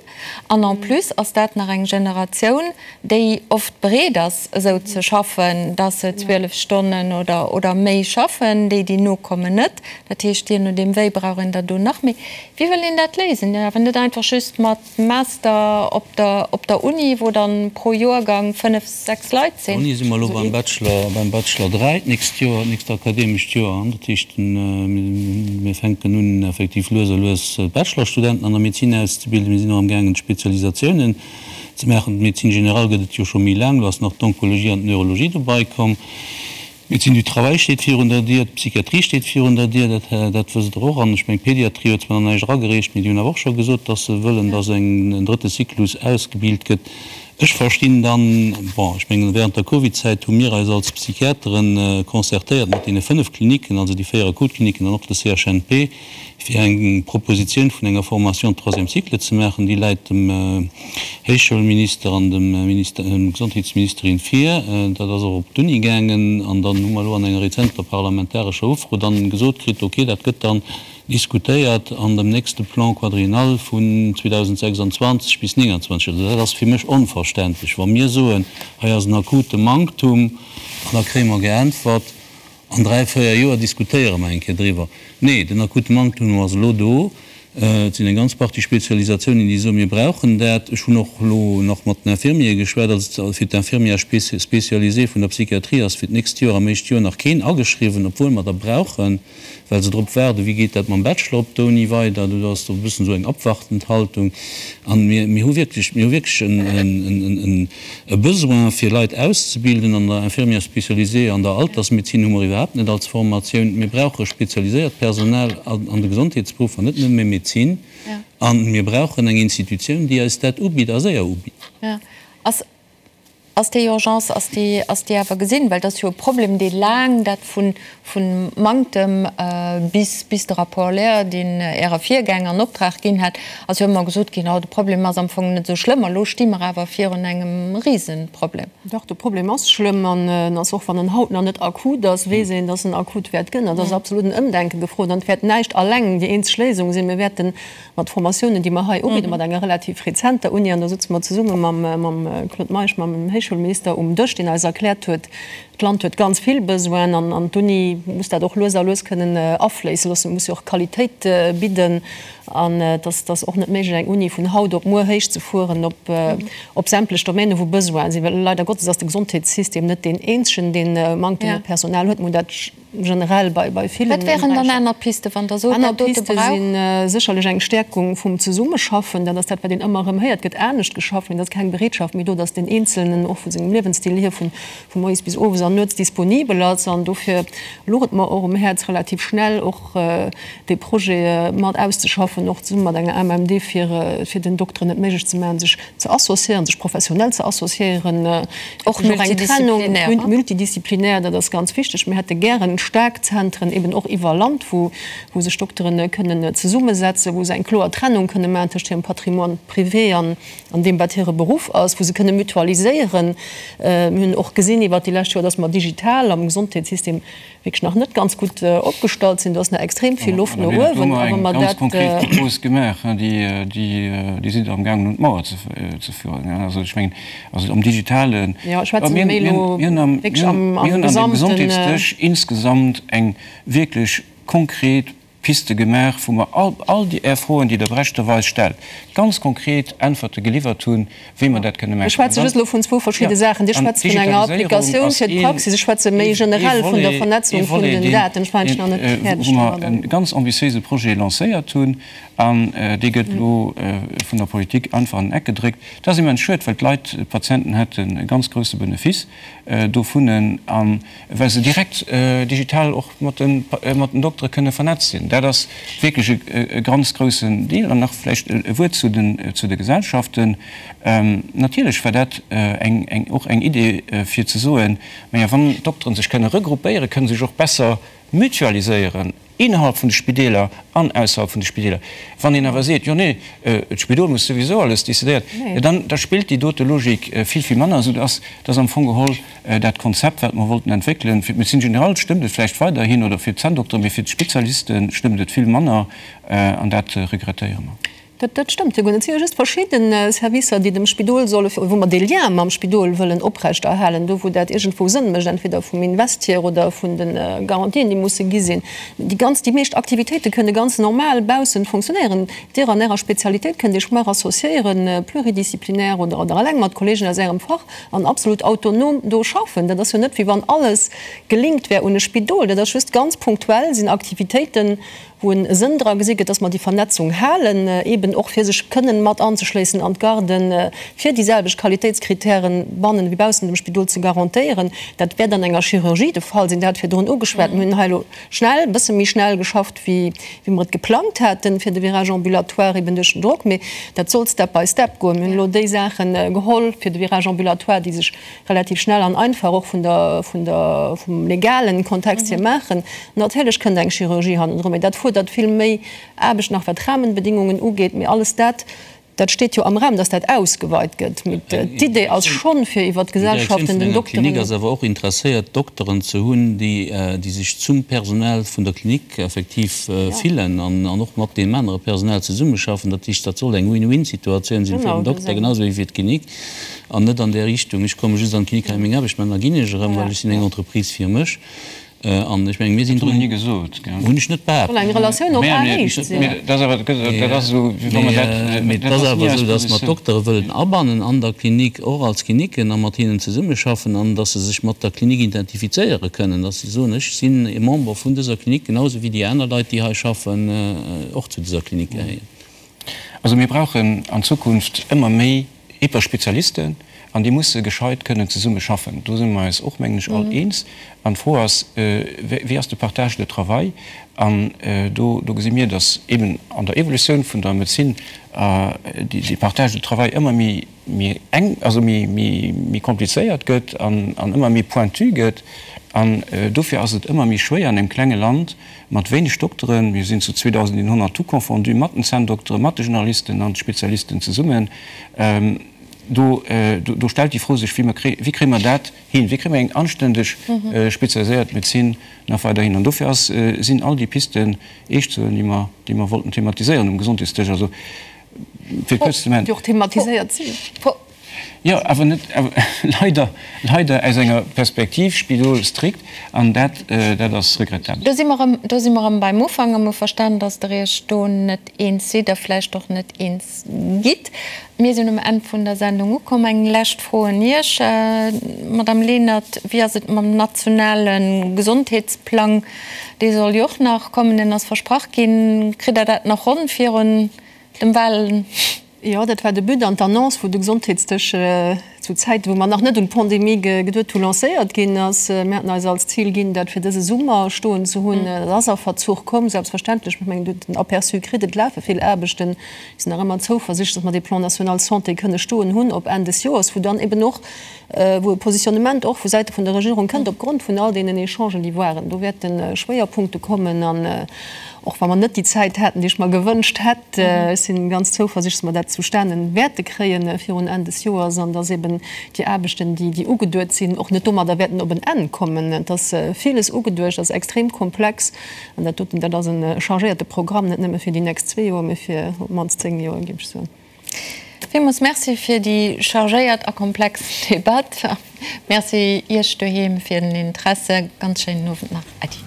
An en plus ass dat nach eng Generatioun, déi oft bereet ass, esou ze schaffen, dass se 12 Stonnen oder, oder méi schaffen. Déi, déi nokommen, net. Dat heescht, jee nodeem wéi, brauch een der do nach méi. Wéi wëll een dat léisen? Jo, awer net einfach just mat. Master op der op der Uni, wou dann pro Joergang 5, 6 Leit sinn. Uni si mer elo beim Bachelor, beim Bachelor 3 d'nächst Joer, d'nächst akademescht Joer. Dat heescht, mir fänken un effektiv lues a lues Bachelorstudenten an der Medezin auszebilden. Mir sinn och amgaangen d'Spezialisatiounen ze maachen. D'Médecine générale gëtt et jo scho méi laang, elo ass nach d'Onkologie an d'Neurologie dobei komm. D'Médecine du travail steet virun der Dier, d'Psychiatrie steet virun der Dier, dat, dat wësst Der och. An ech mengen, d'Pédiatrie huet zwar nach näischt eragereecht, mee déi hunn awer och scho gesot, dass se wëllen, dass eng, en drëtte Cyclus ausgebilt gëtt. Ech verstinn dann, bon, ech mengen, während der Covidzäit hu mir eis als Psychiateren concertéiert mat deene 5 Kliniken, also déi 4 Akutkliniken an och de CHNP, fir eng Propositioun vun enger Formation de troisième cycle ze maachen. Déi läit dem Héichschoulminister an dem Minister, dem Gesondheetsministerin vir. Dat ass och op d'Uni gaangen. An dann hu mer elo an enger rezenter parlamentarescher Ufro dann gesot kritt, okay, dat gëtt dann diskutéiert an dem nächste Plan quadriennal vun 2026 bis 2029. Also dat ass fir mech onverständlech, wa mir soen, hei ass en akute Manktum, an da kréie mer geäntwert, An 3, 4 Joer diskutéiere mer eng Kéier driwwer. Nee, den akute Manktum ass elo do. Et sinn eng ganz Partie Spezialisatiounen, déi soen, mir brauchen dat. Ech hunn och elo nach mat den Infirmiere geschwat. Also fir d'Infirmière spécialisée vun der Psychiatrie ass fir d'nächst Joer am éischte Joer nach keen ageschriwwen, obwuel mer der brauchen, well se drop waarden, wéi geet dat mam Bachelor op der Uni weider. Do ass do e bëssen esou eng abwartend Haltung. An mir, mir hu wierklech, mir hu wierklech en, E Besoin fir Leit auszebilden an der Infirmière spécialisée, an der Altersmedezin hu mer iwwerhaapt net als Formatioun. Mir brauche spezialiséiert Personal an de Gesondheetsberuffer, net nëmme Medezin. A mir brauchen eng Institutioun, déi eis dat ubitt a séier ubitt. Ass. Ass déi Urgence, ass déi, ass déi awer gesinn? Well et ass jo e Problem, dee laang, dat vu, vu Manktem bis, bis de Rapport Lehr, deen Äre Virgänger an Optrag ginn hat, ass jo ëmmer gesot ginn, oh, de Problem ass am Fong net esou schlëmm. A lo sti mer awer virun engem Risenproblem. Dach, de Problem ass schlëmm an en ass, och wann en haut nach net akut ass, weess een, dass en akut wäert gënn. An et ass absolut en Ëmdenke gefrot an et wäert näischt alleng déi eenzeg Léisung sinn. Mir wäerten Mat Formatiounen, déi mer hei ubidden, mat enger relativ rezenter Uni, an do sëtze mer zesumme mam Claude Meisch, mam Héichschoulminister um Dësch, deen eis erkläert huet, d'Land huet ganz vill Besoinen an d'Uni muss dat och lues a lues kënnen afléisse loossen, muss jo och Qualitéit bidden. An et ass och net méiglech, eng Uni vun haut op muer héichzefueren op sämtlech Domänen, wou Besoinen sinn, well leider Gottes ass de Gesondheetssystem net deen eenzegen, dee Manktem u Personal huet. Mir hunn dat generell bei bei villen Wat wären dann aner Pisten, wann Der sot, dat dote brauch? Aner Piste si sécherlech eng Stäerkung vum Zesummeschaffen. Dat ass dat, wat een ëmmer erëm héiert. Et gëtt anescht geschafft, mee et ass keng Bereetschaft méi do, datt deen Eenzelnen och vu sengem Liewensstil hier vu vu moies bis owes an nuets disponibel ass. An dofir louch et mer och um Häerz, relativ schnell och dee Projet mat auszeschaffen, och zesumme mat enger AMMD, fir fir den Dokteren et méiglech ze maachen, sech ze associéieren, sech professionell ze associéieren, och nach eng Trennung, multidisziplinär, dat ass ganz wichteg. Mir hätte gären staark Zentren eben och iwwer Land, wou sech Dokteren kënnen zesummesetzen, wou se eng kloer Trennung kënne maachen tëscht hirem Patrimoine privé an deem, wat hire Beruff ass, wou se kënne mutualiséieren. Mir hunn och gesinn iwwert déi lescht Joer, dass mer digital am Gesondheetssystem wierklech nach net ganz gutt opgestallt sinn. Do ass nach extrem vill Loft no uewen. A wa mer dat. Ganz konkret Propose gemaach, déi sidd Der amgaangen un d'Mauer ze führen. Also ech mengen, also am Digitalen. Jo, ech schwätze méi elo wierklech am Gesamten. Mir hunn an deem Gesondheetsdësch insgesamt eng wierklech konkret Piste gemaach, wou mer all, all déi Är Froen, déi Der berechterweis stellt, ganz konkret Äntwerte geliwwert hunn, wéi mer dat kënne maachen. Ech schwätze just elo vun zwou verschidde Saachen. Dir schwätzt vun enger Applikatioun fir d'Praxis, ech schwätze méi generell vun der Vernetzung vun den Daten. Ech war eigentlich nach net fäerdeg domadder. Wou mer e ganz ambitiéise Projet lancéiert hunn, an dee gëtt elo vun der Politik einfach an den Eck gedréckt. Dat ass immens schued, well d'Leit, d'Patienten hätten e ganz grouse Benefice dovun. A well se direkt digital och mat den Doktere kënne vernetzt sinn. Dat ass wierklech e ganz groussen Deel. An nach vläicht e Wuert zu de Gesellschaften. Natierlech war dat och eng Idee fir ze soen, Maja, wann d'Dokteren sech kënne regroupéieren, kënne se sech och besser mutualiséieren innerhalb vun de Spideeler an ausserhalb vun de Spideeler. Wann een awer seet, jo nee, d'Spidol muss souwisou alles decidéieren, jo dann da spillt déi dote Logik vill, vill manner, soudass dass am Fong geholl dat Konzept, wat mer wollten entwéckelen, fir d'Médecine générale stëmmt et vläicht weiderhin oder fir d'Zänndokteren, mee fir d'Spezialiste stëmmt et vill manner an dat regrettéiere mer. Dat stëmmt jo guer net. Et si jo just verschidde Servicer, déi dem Spidol solle, wou mer dee Lien mam Spidol wëllen oprechterhalen, do wou dat iergendwou Sënn mécht, entweder vum Invest hier oder vun de Garantien, déi musse gi sinn. Déi ganz, déi meescht Aktivitéite kënne ganz normal baussent funktionéieren. Dir an Ärer Spezialitéit kënnt Iech mar associéieren, pluridisciplinaire oder oder eleng mat Kollegen aus Ärem Fach an absolut autonom do schaffen. Dat ass jo net, wéi wann alles gelinkt wär un e Spidol. Dat ass just ganz punktuell sinn Aktivitéiten, wou e Sënn dra gesi gëtt, dass mer déi Vernetzung halen, eeben och fir sech kënnen mat anzeschléissen an d'Garden, fir déi selwecht Qualitéitskritären bannen ewéi baussent dem Spidol ze garantéieren. Dat wäert an enger Chirurgie de Fall sinn. Der hat virdrun ugeschwat, mir hunn hei elo schnell, e bësse méi schnell geschafft, wéi mer et geplangt haten, fir de Virage ambulatoire, eeben duerch den Drock. Mee dat soll step by step goen. Mir hunn elo déi Saache geholl fir de Virage ambulatoire, déi sech relativ schnell an einfach och vun der, vun der, vum legalen Kontext hier maachen. Natierlech kënnt eng Chirurgie hannendrun, mee dat fuerdert vill méi Aarbecht nach wat d'Rahmenbedingungen ugeet. Mee alles dat, dat steet jo am Raum, dass dat ausgeweit gëtt. Mee d'Idee ass schonn, fir iwwert d'Gesellschaften den Dokteren. D'Direktioun vun enger Klinik ass awer och interesséiert, Dokteren ze hunn, déi, déi sech zum Personal vun der Klinik effektiv fillen an och mat deem anere Personal zesummeschaffen. Dat heescht, dat soll eng Win-win-Situatioun sinn fir den Dokter genau esou wéi fir d'Klinik. An net an där Richtung, ech komme just an d'Klinik hei meng Aarbecht maachen, da ginn ech erëm, well ech sinn eng Entreprise fir mech. An ech mengen, mir sinn drun. Dat hunn ech ni gesot, gell. Hunn ech net behaapt. Soll eng Relatioun op Aenhéicht sinn. Mee dat ass awer, dat ass esou, wéi wa mer dat, Mee et ass awer esou, datt mer d'Doktere wëllen abannen an der Klinik, och als Kliniken, a mat hinnen zesummeschaffen an datt se sech mat der Klinik identifizéiere kënnen, datt se soen, ech sinn e Member vun dëser Klinik, genau esou wéi déi aner Leit, déi hei schaffen, och zu dëser Klinik gehéieren. Also mir brauchen an Zukunft ëmmer méi Hyperspezialisten. An déi musse gescheit kënnen zesumme schaffen. Do si mer eis och, mengen ech, all eens. An d'Fro ass, Wéi ass de Partage de travail? An do gesi mir, datt eben an der Evolutioun vun der Medezin dee Partage de travail ëmmer méi enk, also méi komplizéiert gëtt an ëmmer méi pointu gëtt. An dofir ass et ëmmer méi schwéier an engem klenge Land mat wéineg Dokteren, mir sinn zu 2.100 tout confondu, mat den Zänndokteren, mat de Generalisten an de Spezialisten zesummen, do stellt déi Fro sech, Wéi kréie mer dat hin? Wéi kréie mer eng anständeg spezialiséiert Medezin nach weider hin? An dofir ass, sinn all déi Pisten eescht ze huelen, déi mer, déi mer wollten thematiséieren um Gesondheetsdësch. Also, fir kuerz ze maachen. Déi och thematiséiert sinn. Jo, awer net, leider, leider aus enger Perspektiv Spidol strikt, an dat, dat ass regrettabel. Do si mer erëm, do si mer erëm beim Ufank a mer hu verstan, dass Der Iech do net eens sidd a vläicht och net eens gitt. Mir sinn um Enn vun der Sendung ukomm. Eng lescht Fro un Iech, Madame Lenert, Wéi ass et mam nationale Gesondheetsplang? Dee soll jo och nach kommen, deen ass versprach ginn. Kritt Der dat nach ronn virun dem Wahlen? Jo, dat war de But an d'Annonce, wou de Gesondheetsdësch zu Zäiten, wou mer nach net un d'Pandemie geduet hu, lancéiert ginn ass. Mir haten eis als Zil ginn, dat fir dëse Summer stoen ze hunn. Dat ass a Verzuch komm, selbstverständlech. Ech mengen, Dir hutt den Aperçu kritt, et lafe vill Aarbechten. Mir sinn nach ëmmer zouversichtlech, datt mer dee Plan national santé kënne stoen hunn op Enn des Joers, wou dann eben och, wou e Positionnement och vu Säite vun der Regierung kënnt opgrond vun all deenen Echangen, déi waren. Do wäerte Schwéierpunkte kommen an och wa mer net déi Zäit haten, déi ech mer gewënscht hätt, ech si ganz zouversichtlech, dass mer dat zustane wäerte kréie virun Enn des Joers an dass eben déi Aarbechten, déi déi ugeduet sinn, och net domadder wäerten op en Enn kommen. Et ass villes ugeduecht, ass extrem komplex an dat doten, dat ass e chargéierte Programm, net nëmme fir déi nächst zwee Joer, mee fir op d'mannst zéng Joer, géif ech soen. Villmools Merci fir déi chargéiert a komplex Debatt. Merci Iech doheem fir den Interesse. Ganz schéinen Owend nach. Äddi.